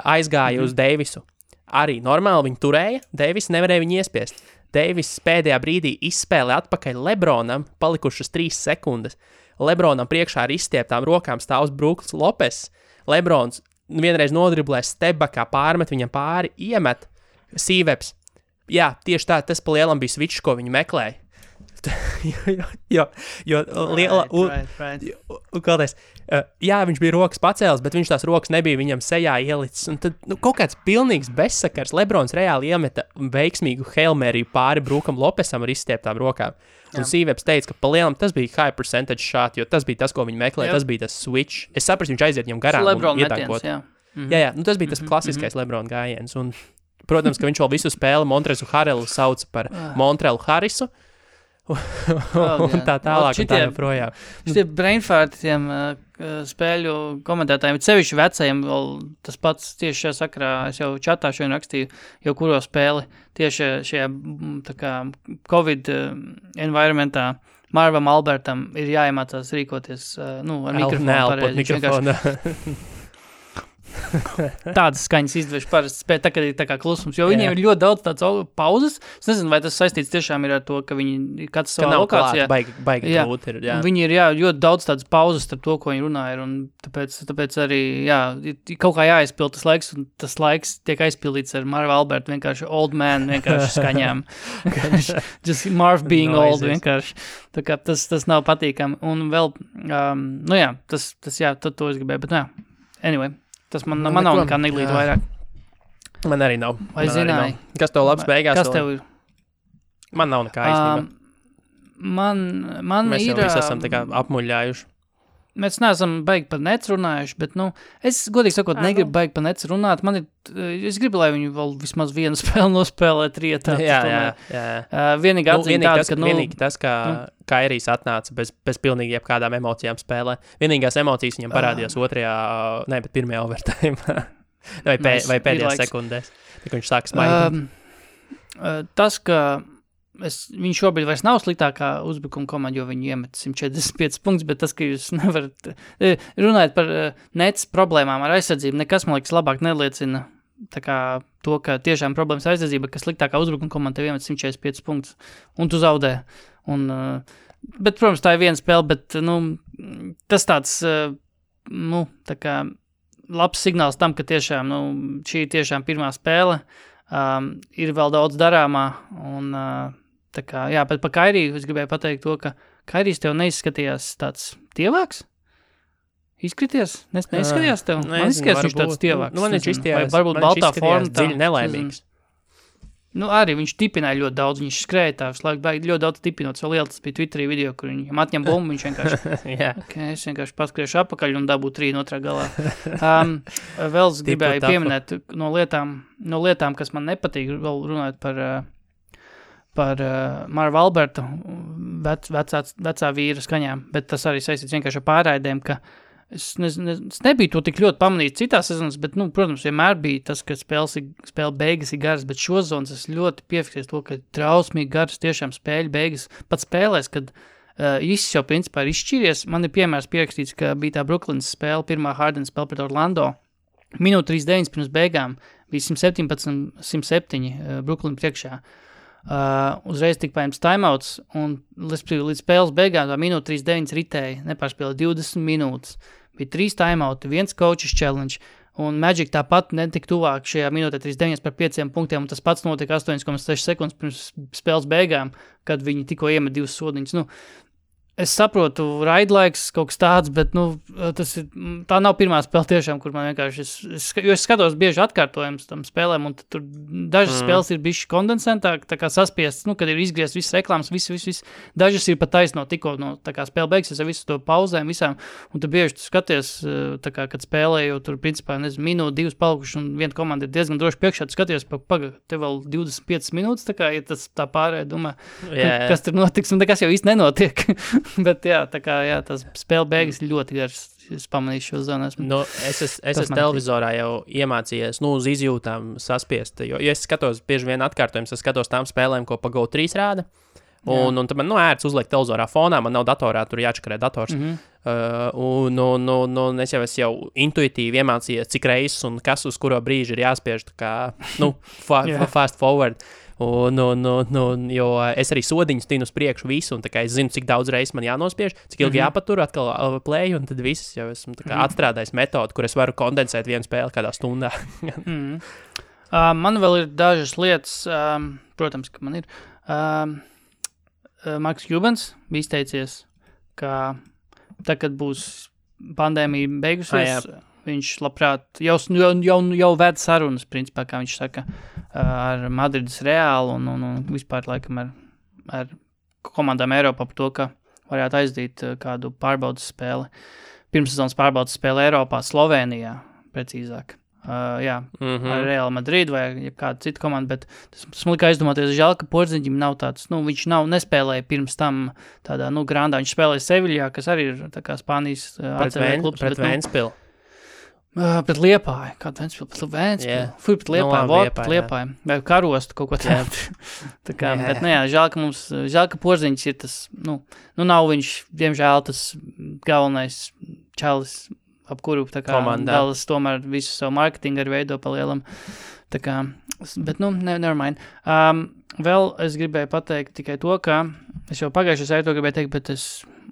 aizgāja uz Deivisu. Arī normāli viņi turēja, Deivis nevarēja viņu iespiest. Deivis pēdējā brīdī izspēlē atpakaļ Lebronam, palikušas 3 sekundes. Lebronam priekšā ar izstieptām rokām stāvs Brooks Lopes. Lebrons vienreiz nodriblē stepbackā, pārmet viņam pāri, iemet Sīveps. Jā, tieši tā, tas pa lielam bija switch, ko viņi meklēja. Jā, viņš bija rokas pacēlis, bet viņš tās rokas nebija viņam sejā ielicis. Un tad kaut kāds pilnīgs bezsakars. Lebrons reāli iemeta veiksmīgu Hail Mary pāri Brookam Lopesam ar izstieptām rokām. Un Sīveps teica, ka pa lielam tas bija high percentage shot, jo tas bija tas, ko viņi meklēja, tas bija tas switch. Es saprastu, viņš aiziet viņam garām un ietankot. Jā, tas bija tas klasiskais Lebrona gājiens. Un, protams, ka viņš vēl visu spēli Montrezu Harrelu sauca par Montrelu Harrisu. Un tā tālāk, un tā joprojām. Šitie brainfartiem spēļu komentētājiem, sevišķi vecajiem, vēl tas pats tieši šajā sakarā, es jau čatā šodien rakstīju, jau kuro spēli tieši šajā tā kā Covid environmentā Marvam Albertam ir jāiemācās rīkoties, ar mikrofonu pareizi. Tādas skaņas izdvež parasti spēt, tā, kad ir tā kā klusums, jo viņiem ir ļoti daudz tādas pauzes. Es nezinu, vai tas saistīts tiešām ir ar to, ka viņi katrs savā lokācijā. Baigi grūti ir, jā. Viņi ir, ļoti daudz tādas pauzes starp to, ko viņi runā ir, un tāpēc arī, kaut kā jāaizpild tas laiks, un tas laiks tiek aizpildīts ar Marva Albertu, vienkārši old man, vienkārši skaņām. Just Marv being old, vienkārši. Tā kā tas nav patīkami. Un vēl, tad to es gribēju, bet anyway. Tas man nav nekā neglīt vairāk. Man arī nav. Vai zināji? Kas tev labs beigās? Kas tev ir? Man nav nekā īstenībā. Man mēs ir... Mēs jau visi esam tā kā apmuļļājuši. Mēs neesam baigi par nets runājuši, bet, es godīgi sakot, negribu baigi par nets runāt. Es gribu, lai viņi vēl vismaz vienu spēli nospēlēt rietā. Jā. Vienīgi atzīm tāda, ka... Vienīgi tas, ka Kairijs atnāca bez pilnīgi jebkādām emocijām spēlē. Vienīgās emocijas viņam parādījās pirmajā overtime. vai pēdējās sekundēs. Tā, ka viņš sāk smaidīt. Tas, ka viņš šobrīd vairs nav sliktākā uzbrukuma komanda, jo viņi iemet 145 punktus, bet tas, ka jūs nevarat runāt par nets problēmām ar aizsardzību, nekas, man liekas, labāk neliecina tā kā to, ka tiešām problēmas aizsardzība, ka sliktākā uzbrukuma komanda tev iemet 145 punktus, un tu zaudē. Bet, protams, tā ir viena spēle, bet, tas tāds, tā kā labs signāls tam, ka tiešām, šī ir tiešām pirmā spēle, ir vēl daudz darāmā, un tā kā, jā, bet par Kairiju es gribēju pateikt to, ka Kairijs tev neizskatījās tāds tievāks? Izskaties? Neizskatījās tev? Man izskatījās viņš tāds tievāks. Man viņš izskatījās, varbūt baltā forma dziļi nelaimīgs. Arī viņš tipināja ļoti daudz, viņš skrēja tā, ļoti daudz tipinot, vēl liela tas bija Twitterī video, kur viņam atņem bumbu, viņš vienkārši, es vienkārši paskriešu apakaļ un dabū 3 otrā galā. Vēl gribēju pieminēt no lietām, kas man nepatīk, vēl runājot par Marva Alberta vecā vīra skaņām, bet tas arī saistīts vienkārši ar pārraidēm, ka es nebiju to tik ļoti pamanījis citās sezonas, bet, protams, vienmēr bija tas, ka spēle beigas ir garas, bet šo zonas es ļoti piefiksēju to, ka trausmīgi garas tiešām spēļu beigas. Pat spēlēs, kad viss jau principā ir izšķīries, man ir piemērs pierakstīts, ka bija tā Brooklynas spēle, pirmā Harden spēle pret Orlando, minūte 39 pirms beigām, bija 117-107 Brooklyn priekšā. Uzreiz tika paņemts timeouts, un līdz spēles beigām tā minūte 39 ritēja, nepārspēlē 20 minūtes. Bija 3 timeouti, 1 coaches challenge, un Magic tāpat netika tuvāk šajā minūtē 39 par 5 punktiem, un tas pats notika 8,6 sekundes pirms spēles beigām, kad viņi tikko iemet 2 sodiņus. Es saprotu, raidlaiks kaut kas tāds, bet, tā nav pirmā spēle tiešām, kur man vienkārši, jo es skatos bieži atkārtojums tam spēlēm, un tur dažas spēles ir bišķi kondensentāk, tā kā saspiestas, kad ir izgriezt visas reklāmas, viss. Dažas ir pat taisno tikko, tā kā spēle beigsies ar visu to pauzēm visām, un tu bieži tu skaties, tā kā, kad spēlē, jo tur, principā, minūte, 2 palikuši, un viena komanda ir diezgan droši priekšā, tu skaties, te vēl 25 minūtes, tā kā, ja tas tā pārēj, domā, kas tur notiks, un nekas jau īsti nenotiek. Bet tas spēle beigas ļoti garas, es pamanīju šo zonu. Es esmu televizorā jau iemācījies, uz izjūtām saspiest, jo es skatos bieži vien atkārtojums, es skatos tām spēlēm, ko pa GO3 rāda, un tad man ērts uzliekt televizorā fonā, man nav datorā, tur jāčakarē dators, un es jau intuitīvi iemācījies, cik reizes un kas uz kuro brīži ir jāspiež, tā kā, fast forward. Jo es arī sodiņus tinu uz priekšu visu, un tā kā es zinu, cik daudz reizes man jānospiež, cik ilgi jāpatur, atkal play, un tad viss jau esmu tā kā atstrādājis metodu, kur es varu kondensēt vienu spēli kādā stundā. Man vēl ir dažas lietas, protams, ka man ir. Marks Cubans bija izteicies, ka tā, kad būs pandēmija beigusies, viņš labprāt jau ved sarunas, principā, kā viņš saka, ar Madrides Reālu un vispār laikam ar komandām Eiropā par to, ka varētu aizdīt kādu pārbaudas spēli, pirmssezonas pārbaudas spēli Eiropā, Slovenijā, precīzāk. Ar Real Madrid vai kādu citu komandu, bet tas man lika aizdomāties, žēl, ka Porziņģim nav tāds, viņš nespēlēja pirms tam tādā, grandā, viņš spēlēja Seviljā, kas arī ir tā kā Spānijas ACV klubs. Pret Ventspilu. Pret Liepāju, kādu Ventspilu, pret Liepāju, vai Karostu kaut ko tādu. Tā kā, bet, žēl, ka Porziņģis ir tas, nav viņš, diemžēl, tas galvenais čalis, ap kuru, tā kā, Dallas tomēr visu savu marketingu arī veido pa lielam. Tā kā, bet, never mind. Vēl es gribēju pateikt tikai to, ka es jau pagājušajā to gribēju teikt, bet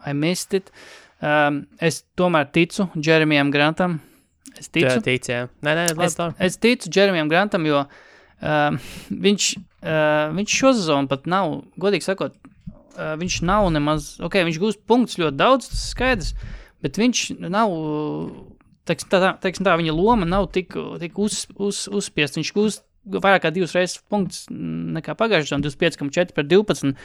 I missed it. Es tomēr ticu Jeremijam Grantam. Es ticu. Es ticu Jeremijam Grantam, jo viņš šo sezonu pat nav, godīgi sakot, viņš nav nemaz, viņš gūst punktus ļoti daudz, tas skaidrs, bet viņš nav, teiksim tā, viņa loma nav tik uzspiest, viņš gūst vairāk kā 2 reizes punktus nekā pagājušajā, 25,4 par 12,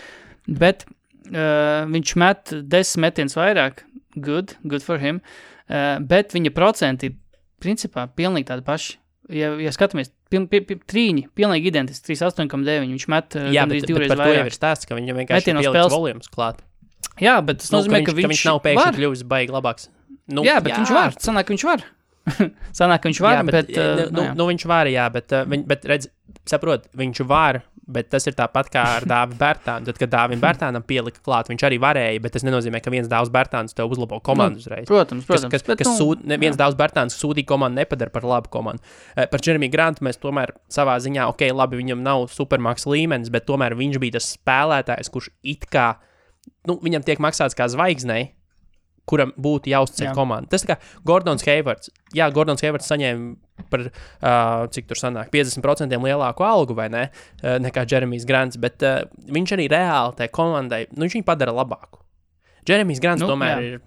bet viņš met 10 metienus vairāk, good for him, bet viņa procenti principā pilnīgi tādi paši. Ja skatāmies, trīņi, pilnīgi identiski, 38,9, viņš met gandrīz 2 reizes vairāk. Jā, bet par to jau ir stāsts, ka viņam vienkārši ir pieliks volumes klāt. Jā, bet tas nozīmē, ka viņš nav pēkšņi kļuvis baigi labāks. Bet viņš var, sanāk, ka viņš var. Bet viņš var, jā, bet redz, saprot, viņš var, bet tas ir tāpat kā ar Dāvi Bērtānu. Tad, kad Dāvim Bērtānam pielika klāt, viņš arī varēja, bet tas nenozīmē, ka viens Dāvs Bērtāns tev uzlabo komandu uzreiz. Protams. Viens Dāvs Bērtāns sūdīgu komandu nepadara par labu komandu. Par Jeremy Grantu mēs tomēr savā ziņā, labi, viņam nav supermaks līmenis, bet tomēr viņš bija tas spēlētājs, kurš it kā, viņam tiek maksāts kā zvaigznei, kuram būtu jāuzceļ komanda. Tas tā kā Gordons Haywards. Jā, Gordons Haywards saņēma par, cik tur sanāk, 50% lielāku algu, vai ne, nekā Jeremijs Grants, bet viņš arī reāli tai komandai, viņš viņu padara labāku. Jeremijs Grants tomēr ir,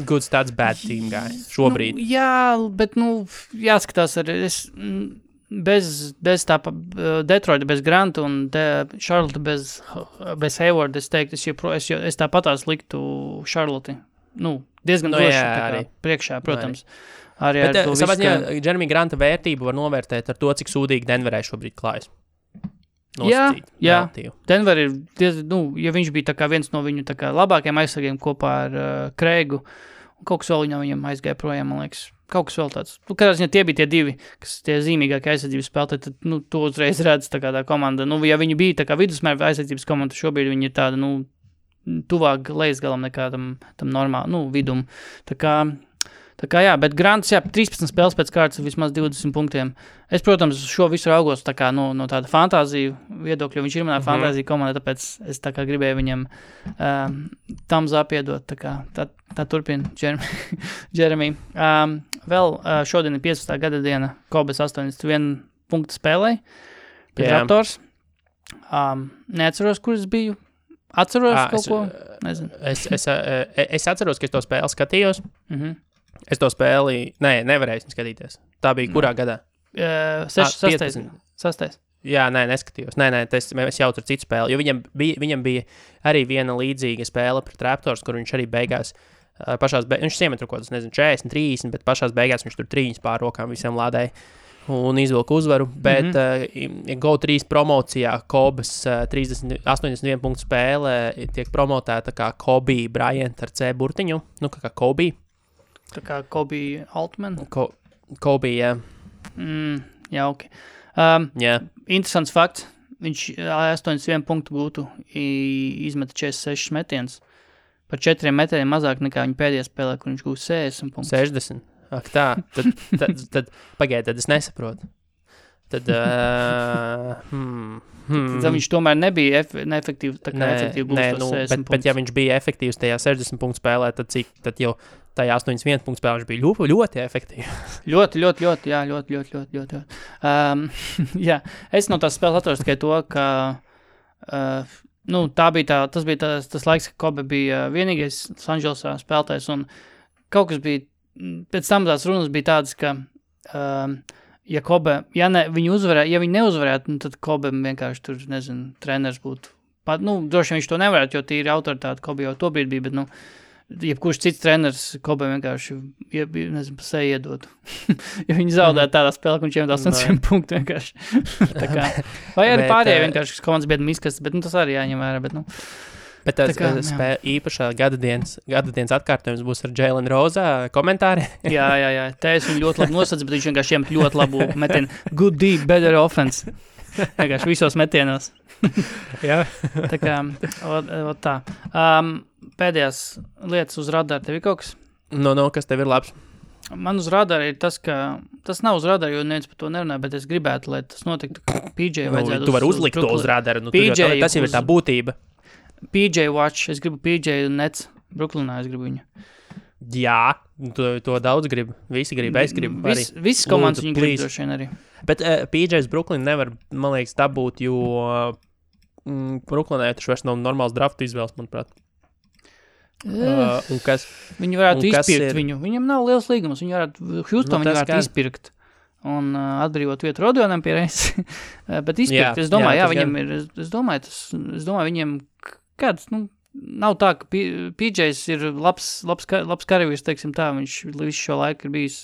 goods tāds bad team guy šobrīd. Jā, bet, jāskatās arī, bez tā Detroita, bez Granta un Charlotte bez Hayward, es teiktu, es tāpatās liktu Charlotte. Diezgan droši priekšā, protams. Bet savā ziņā Jeremy Granta vērtību var novērtēt ar to, cik sūdīgi Denverai šobrīd klājas. Jā. Denver ir, ja viņš bija tā kā viens no viņu tā kā labākajiem aizsargiem kopā ar Kreigu, kaut kas vēl viņam aizgāja projām, man liekas. Kaut kas vēl tāds. Kādā ziņā tie bija tie divi, kas tie zīmīgākie aizsardzības spēlētāji, tad, to uzreiz redz tā kā tā komanda. Ja viņi bija tā kā vidusmēra aizsardzības komanda, šobrīd viņi ir tāda, tuvāk lejas galam nekā tam normāli, vidum. Tā kā jā, bet Grants, 13 spēles pēc kārtas vismaz 20 punktiem. Es, protams, šo visu raugos tā kā no tāda fantāziju viedokļa, viņš ir manā fantāzija komanda, tāpēc es tā kā gribēju viņam thumbs up iedot, tā turpina Jeremy. Vēl šodien ir 15. gada diena, Kobes 81 punktu spēlē, pēc Raptors. Neatceros, kur es biju. Atceros kaut ko? Nezinu. Es atceros, ka es to spēli skatījos. Es to spēli, nevarēju skatīties. Tā bija kurā gadā? 6. Jā, neskatījos. Es jaucu ar citu spēli, jo viņam bija arī viena līdzīga spēle pret Raptors, kur viņš arī beigās, viņš iemet kaut kādas, 40, 30, bet pašās beigās viņš tur 3 pār rokām visiem lādēja un izvilka uzvaru, bet Go3 promocijā Kobes 81 punktu spēle tiek promotēta kā Kobe Bryant ar C burtiņu, kā Kobe. Tā kā Kobe Altman? Kobe, jā. Jā, ok. Interesants fakts. Viņš 81 punktu gūtu izmeta 46 metienus. Par 4 metieniem mazāk nekā viņa pēdējā spēlē, kur viņš gūst 60 punktus. 60? Ak tā, tad pagaid, tad es nesaprotu. Tad viņš tomēr nebija neefektīvs, tā kā efektīvi gūst 60 punktus. Bet ja viņš bija efektīvs tajā 60 punktu spēlē, tad jau tajā 81 punktu spēlē viņš bija ļoti efektīvs. Ļoti. Jā, es no tās spēles atceros tikai to, ka tas bija tas laiks, ka Kobe bija vienīgais Sanželsā spēlētājs, un kaut kas bija, pēc tam tās runas bija tādas, ka ja viņi neuzvarētu, tad Kobe vienkārši tur, treneris būtu. Droši viņš to nevarētu, jo tīri autoritāte Kobe jau to brīdi bija, bet, jebkurš cits treneris Kobe vienkārši, pa seju iedotu. Ja viņi zaudētu tādā spēlē, ka viņš iemet 80 punktu vienkārši. Vai arī pārējie vienkārši komandas biedram izkast, bet tas arī jāņem vērā, bet, Bet tas īpašā gadadienas atkārtojums būs ar Jalen Rosa komentāri. Jā. Te es viņu ļoti labi nosadzu, bet viņš vienkārši iemet ļoti labu metienu. Good deep, better offense. Vienkārši visos metienos. Jā. Tā kā, tā. Pēdējās lietas uz radara tev ir kaut kas? Kas tev ir labs? Man uz radara ir tas, ka tas nav uz radara, jo neviens par to nerunāja, bet es gribētu, lai tas notiktu. PJ vajadzētu tu vari uzlikt to uz radara. Tas jau ir tā būtība. PJ Watch, es gribu PJ un Nets. Brooklynā es gribu viņu. Jā, to daudz gribu. Visi grib, es gribu arī. Visas komandas viņu grib droši vien arī. Bet PJ's Brooklyn nevar, man liekas, dabūt, jo Brooklynā taču vairs nav normāls draftu izvēles, manuprāt. Viņi varētu izpirkt viņu. Viņam nav liels līgums. Houston viņi varētu izpirkt un atbrīvot vietu Rodionam pie reizes. Bet izpirkt, es domāju, viņam ir, es domāju, viņiem kāds, nav tā, ka PJs ir labs karavīrs, teiksim tā, viņš visu šo laiku ir bijis,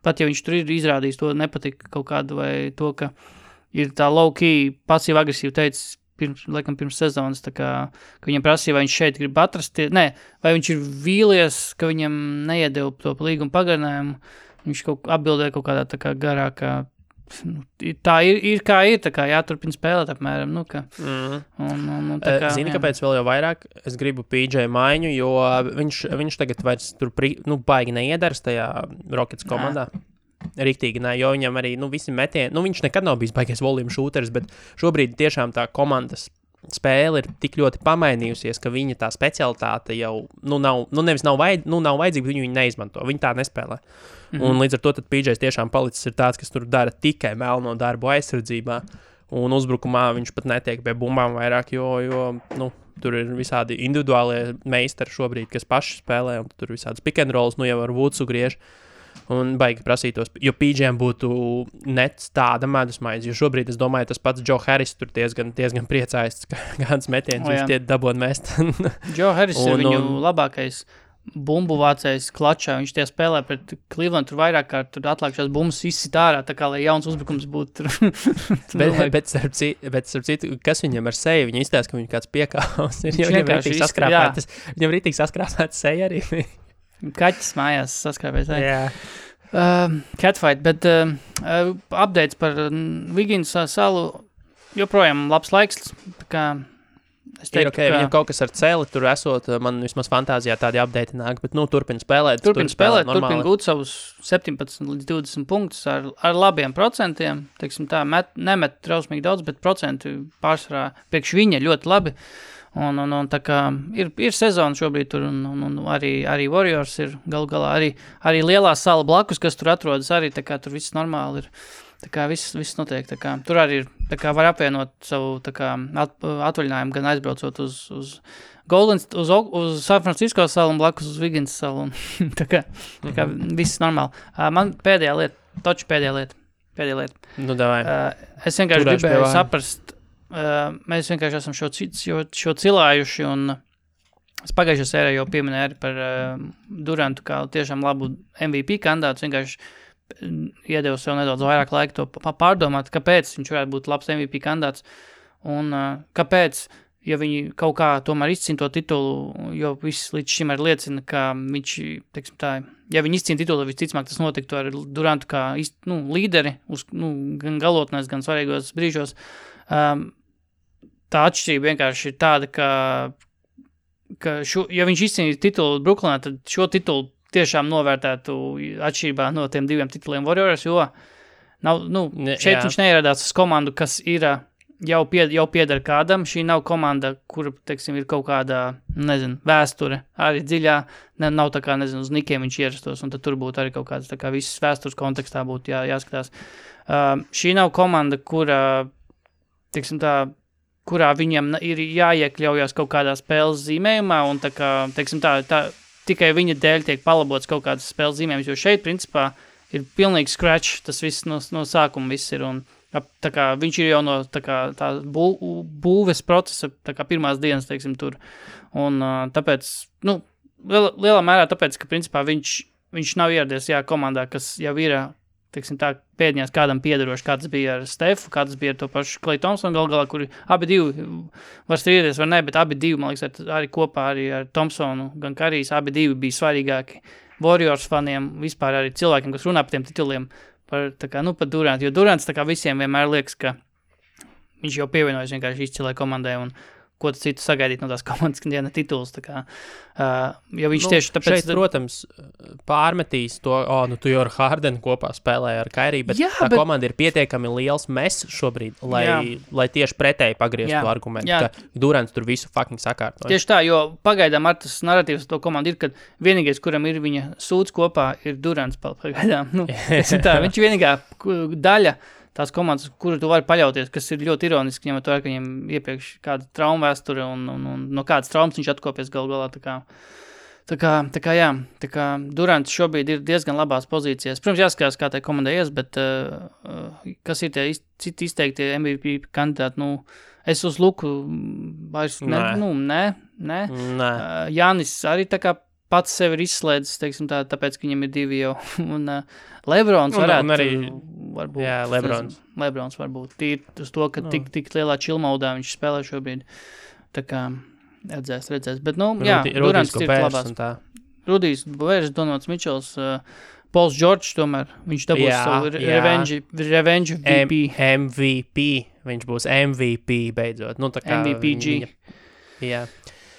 pat ja viņš tur ir izrādījis to nepatika kaut kādu vai to, ka ir tā low-key, pasīvi-agresīvi teicis, pirms sezonas, tā kā, ka viņam prasīja, vai viņš šeit grib atrast, vai viņš ir vīlies, ka viņam neiedeva to līgumu pagarinājumu, viņš atbildēja kaut kādā tā kā garākā tā ir kā ir, tā kā jāturpina spēlēt apmēram, nu, ka... tā kā, Zini, kāpēc vēl jau vairāk es gribu PJ maiņu, jo viņš tagad vairs tur, baigi neiedaras tajā Rockets komandā. Riktīgi, ne, jo viņam arī, visi metieni, viņš nekad nav bijis baigais volume shooteris, bet šobrīd tiešām tā komandas spēle ir tik ļoti pamainījusies, ka viņa tā specialitāte jau, nav vajadzīga, bet viņu neizmanto, viņi tā nespēlē. Un līdz ar to tad PJs tiešām palicis ir tāds, kas tur dara tikai melno darbu aizsardzībā, un uzbrukumā viņš pat netiek pie bumbām vairāk, jo tur ir visādi individuālie meistari šobrīd, kas paši spēlē, un tur visādas pick and rolls, jau ar Woodsu griež. Un baigi prasītos, jo PJ'iem būtu nets tāda medusmaize, jo šobrīd es domāju, tas pats Joe Harris tur diezgan priecājas, kāds metiens viņš tie dabon mest. Joe Harris ir viņu labākais bumbu vācējs klačā, viņš tie spēlē pret Cleveland, tur vairāk kā tur atlākšās bumbas izsit ārā, tā kā lai jauns uzbrukums būtu. bet starp citu, kas viņam ar seju, viņa izstāsta, ka viņš kāds piekāvs ir, viņam rītīgi saskrāpēts seja arī. Kaķis mājās saskrāpēs. Catfight, bet updates par Wiggins salu joprojām labs laiks. Es teiktu, okay, viņam kaut kas ar celi tur esot, man vismaz fantāzijā tādi update nāk, bet turpina spēlēt. Turpina gūt savus 17 līdz 20 punktus ar labiem procentiem. Teiksim tā, nemet trausmīgi daudz, bet procenti pārsvarā priekš viņa ļoti labi. Un tā kā ir sezona šobrīd tur, un arī Warriors ir galu galā, arī lielā sala blakus, kas tur atrodas, arī tā kā tur viss normāli ir, tā kā viss notiek, tā kā tur arī ir, tā kā var apvienot savu, tā kā atvaļinājumu, gan aizbraucot uz Golden, uz San Francisco salu un blakus uz Wiggins salu, un tā kā viss normāli. Man pēdējā lieta. Nu, davai. Es vienkārši gribēju saprast, mēs vienkārši esam šo cilājuši, un es pagājušajā sērijā jau pieminēju arī par Durantu kā tiešām labu MVP kandidātu, vienkārši iedevu sev nedaudz vairāk laika to pārdomāt, kāpēc viņš varētu būt labs MVP kandidāts, un kāpēc, ja viņi kaut kā tomēr izcīna to titulu, jo viss līdz šim arī liecina, ka viņš, teiksim tā, ja viņi izcīna titulu, visticamāk tas notiktu ar Durantu kā līderi, gan galotnēs, gan svarīgos brīžos. Tā atšķirība vienkārši ir tāda, ka ja viņš izcīnīja titulu Brooklynā, tad šo titulu tiešām novērtētu atšķirībā no tiem diviem tituliem Warriors, jo šeit viņš neieradās uz komandu, kas ir jau pieder kādam. Šī nav komanda, kura, teiksim, ir kaut kādā, vēsture arī dziļā, nav tā kā, uz Nikiem viņš ierastos, un tad tur būtu arī kaut kāds, tā kā visas vēstures kontekstā būtu jāskatās. Šī nav komanda, teiksim tā, kurā viņam ir jāiekļaujas kaut kādā spēles zīmējumā, un tā kā, teiksim tā tikai viņa dēļ tiek palabots kaut kādas spēles zīmējums, jo šeit, principā, ir pilnīgi scratch, tas viss no sākuma viss ir, un tā kā viņš ir jau no tā būves procesa, tā kā pirmās dienas, teiksim, tur, un tāpēc, lielā mērā tāpēc, ka, principā, viņš nav ieradies, komandā, kas jau ir, teiksim tā, pēdņās kādam piederoši, kāds bija ar Stefu, kāds bija ar to pašu Klay Thompsonu, galā, kuri abi divi var strīdēties, var ne, bet abi divi, man liekas, arī kopā arī ar Thompsonu, gan Karijs, abi divi bija svarīgāki Warriors faniem, vispār arī cilvēkiem, kas runā par tiem tituliem, par Durantu, jo Durants tā kā visiem vienmēr liekas, ka viņš jau pievienojas vienkārši izcilai komandai, un ko tu citu sagaidīt no tās komandas, kad diena tituls, tā kā, jo viņš tieši tāpēc... Šeit, protams, pārmetīs to, tu jau ar Hardenu kopā spēlēji ar Kairiju, bet komanda ir pietiekami liels mess šobrīd, lai tieši pretēji pagrieztu argumentu, ka Durants tur visu fucking sakārtoja. Tieši tā, jo pagaidām ar tas narratīvs to komandu ir, kad vienīgais, kuram ir viņa sūds kopā, ir Durants pagaidām. Viņš ir vienīgā daļa, tās komandas, kuru tu vari paļauties, kas ir ļoti ironiski, ņemot vērā, ka viņam iepriekš kāda trauma vēsture un no kādas traumas viņš atkopies galu galā. Tā kā Durants šobrīd ir diezgan labās pozīcijās. Protams, jāskatās, kā tai komandai ies, bet kas ir tie citi izteikti MVP kandidāti, es uz Luku vairs ne. Jānis arī tā kā pats sevi ir izslēdzis, teiksim tā, tāpēc, ka viņam ir divi jau, un Lebrons varētu, un arī, varbūt, Lebrons varbūt, tīri uz to, ka tik lielā chillmaudā viņš spēlē šobrīd, tā kā redzēs, bet, Durants ir labās. Rudijs Bovērs, Donots Mičels, Pauls Džordžs tomēr, viņš dabūs savu revenge VP. MVP, viņš būs MVP beidzot. Nu, tā kā MVPG. Jā.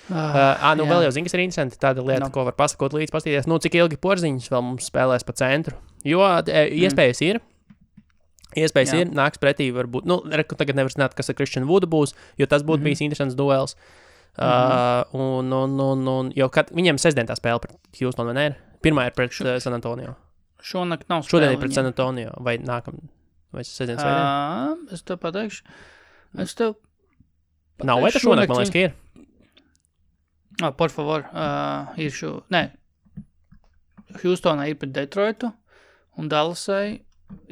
Vēl jau zini, kas ir interesanti, tāda lieta, ko var pasakot līdz pastīties, cik ilgi Porziņš vēl mums spēlēs pa centru, jo iespējas ir, nāks pretī varbūt, tagad nevar zināt, kas ar Christian Woodu būs, jo tas būtu bijis interesants duels, jo viņiem sestdien tā spēle pret Houston, vai ne? Pirmā ir pret San Antonio. Šonakt nav spēle. Šodien ir pret San Antonio, vai sestdien svētdien? Es tev pateikšu. Nav, vai tas šonakt, man liekas, ka ir? Por favor, ir Houstonā ir pret Detroitu, un Dallasai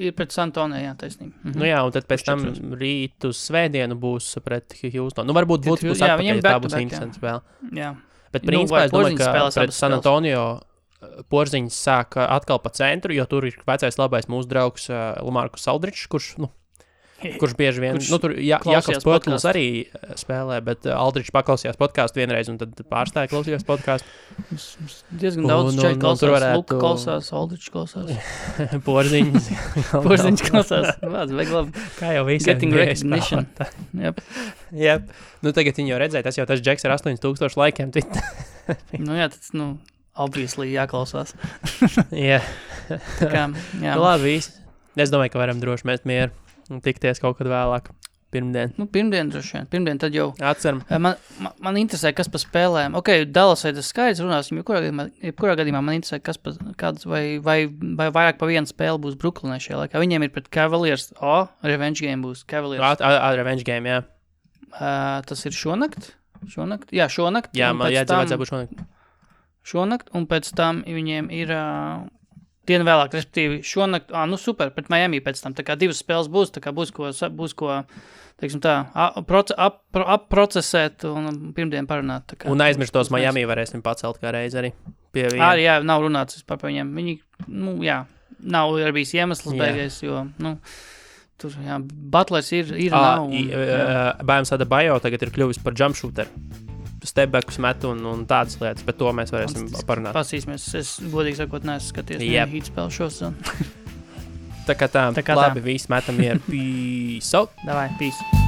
ir pret San Antonio, jā, taisnība. Un tad pēc tam rīt uz svētdienu būs pret Houston. Varbūt būs atpakaļ, tā būs interesants spēle. Jā. Bet principā es domāju, ka pret San Antonio Porziņš sāk atkal pa centru, jo tur ir vecais labais mūsu draugs Lamarcus Aldridžs, kurš bieži vien, tur Jakobs Pötls arī spēlē, bet Aldridžs paklausījās podcastu vienreiz un tad pārstāja klausījās podcastu. Diezgan daudz čai klausās, Luka klausās, Aldridžs klausās. Porziņš klausās. Vajag labi. Kā jau visiem. Getting recognition. Yep. Tagad viņi jau redzēja, tas jau tas Džeks ar 8000 laikiem. Tas, obviously jāklausās. Jā. Jā. Labi, es domāju, ka varam droši mest mieru un tikties kaut kad vēlāk. Pirmdien. Pirmdien droši vien. Pirmdien tad jau. Atceram. Man interesē, kas pa spēlēm. Dallasai tas skaidrs runāsim, jebkurā gadījumā man interesē, kāds vai vairāk pa vienu spēli būs Brooklynē šajā laikā. Viņiem ir pret Cavaliers. Revenge game būs Cavaliers. Revenge game, jā. Tas ir šonakt? Jā, šonakt. Jā, man vajadzēja būt šonakt. Šonakt, un pēc tam viņiem ir dienu vēlāk, respektīvi šonakt, super, pret Miami pēc tam, tā kā divas spēles būs, tā kā būs ko teiksim tā, approcesēt un pirmdien parunāt. Tā kā, un aizmirstos Miami varēsim pacelt kā reiz arī pie viena. Jā, nav runāts vispār par viņiem. Viņi, nav arī bijis iemesls beigais, jo, tur, Butlers ir nav. Bājums Adebayo tagad ir kļuvis par jump shooter. Stepbackus met un tādas lietas, bet to mēs varēsim parunāt. Pasīsimies, es godīgi sakot, neesmu skaties Heat spēlu šos. Tā kā tā, labi, visi metam ir. Peace out. Davai, peace.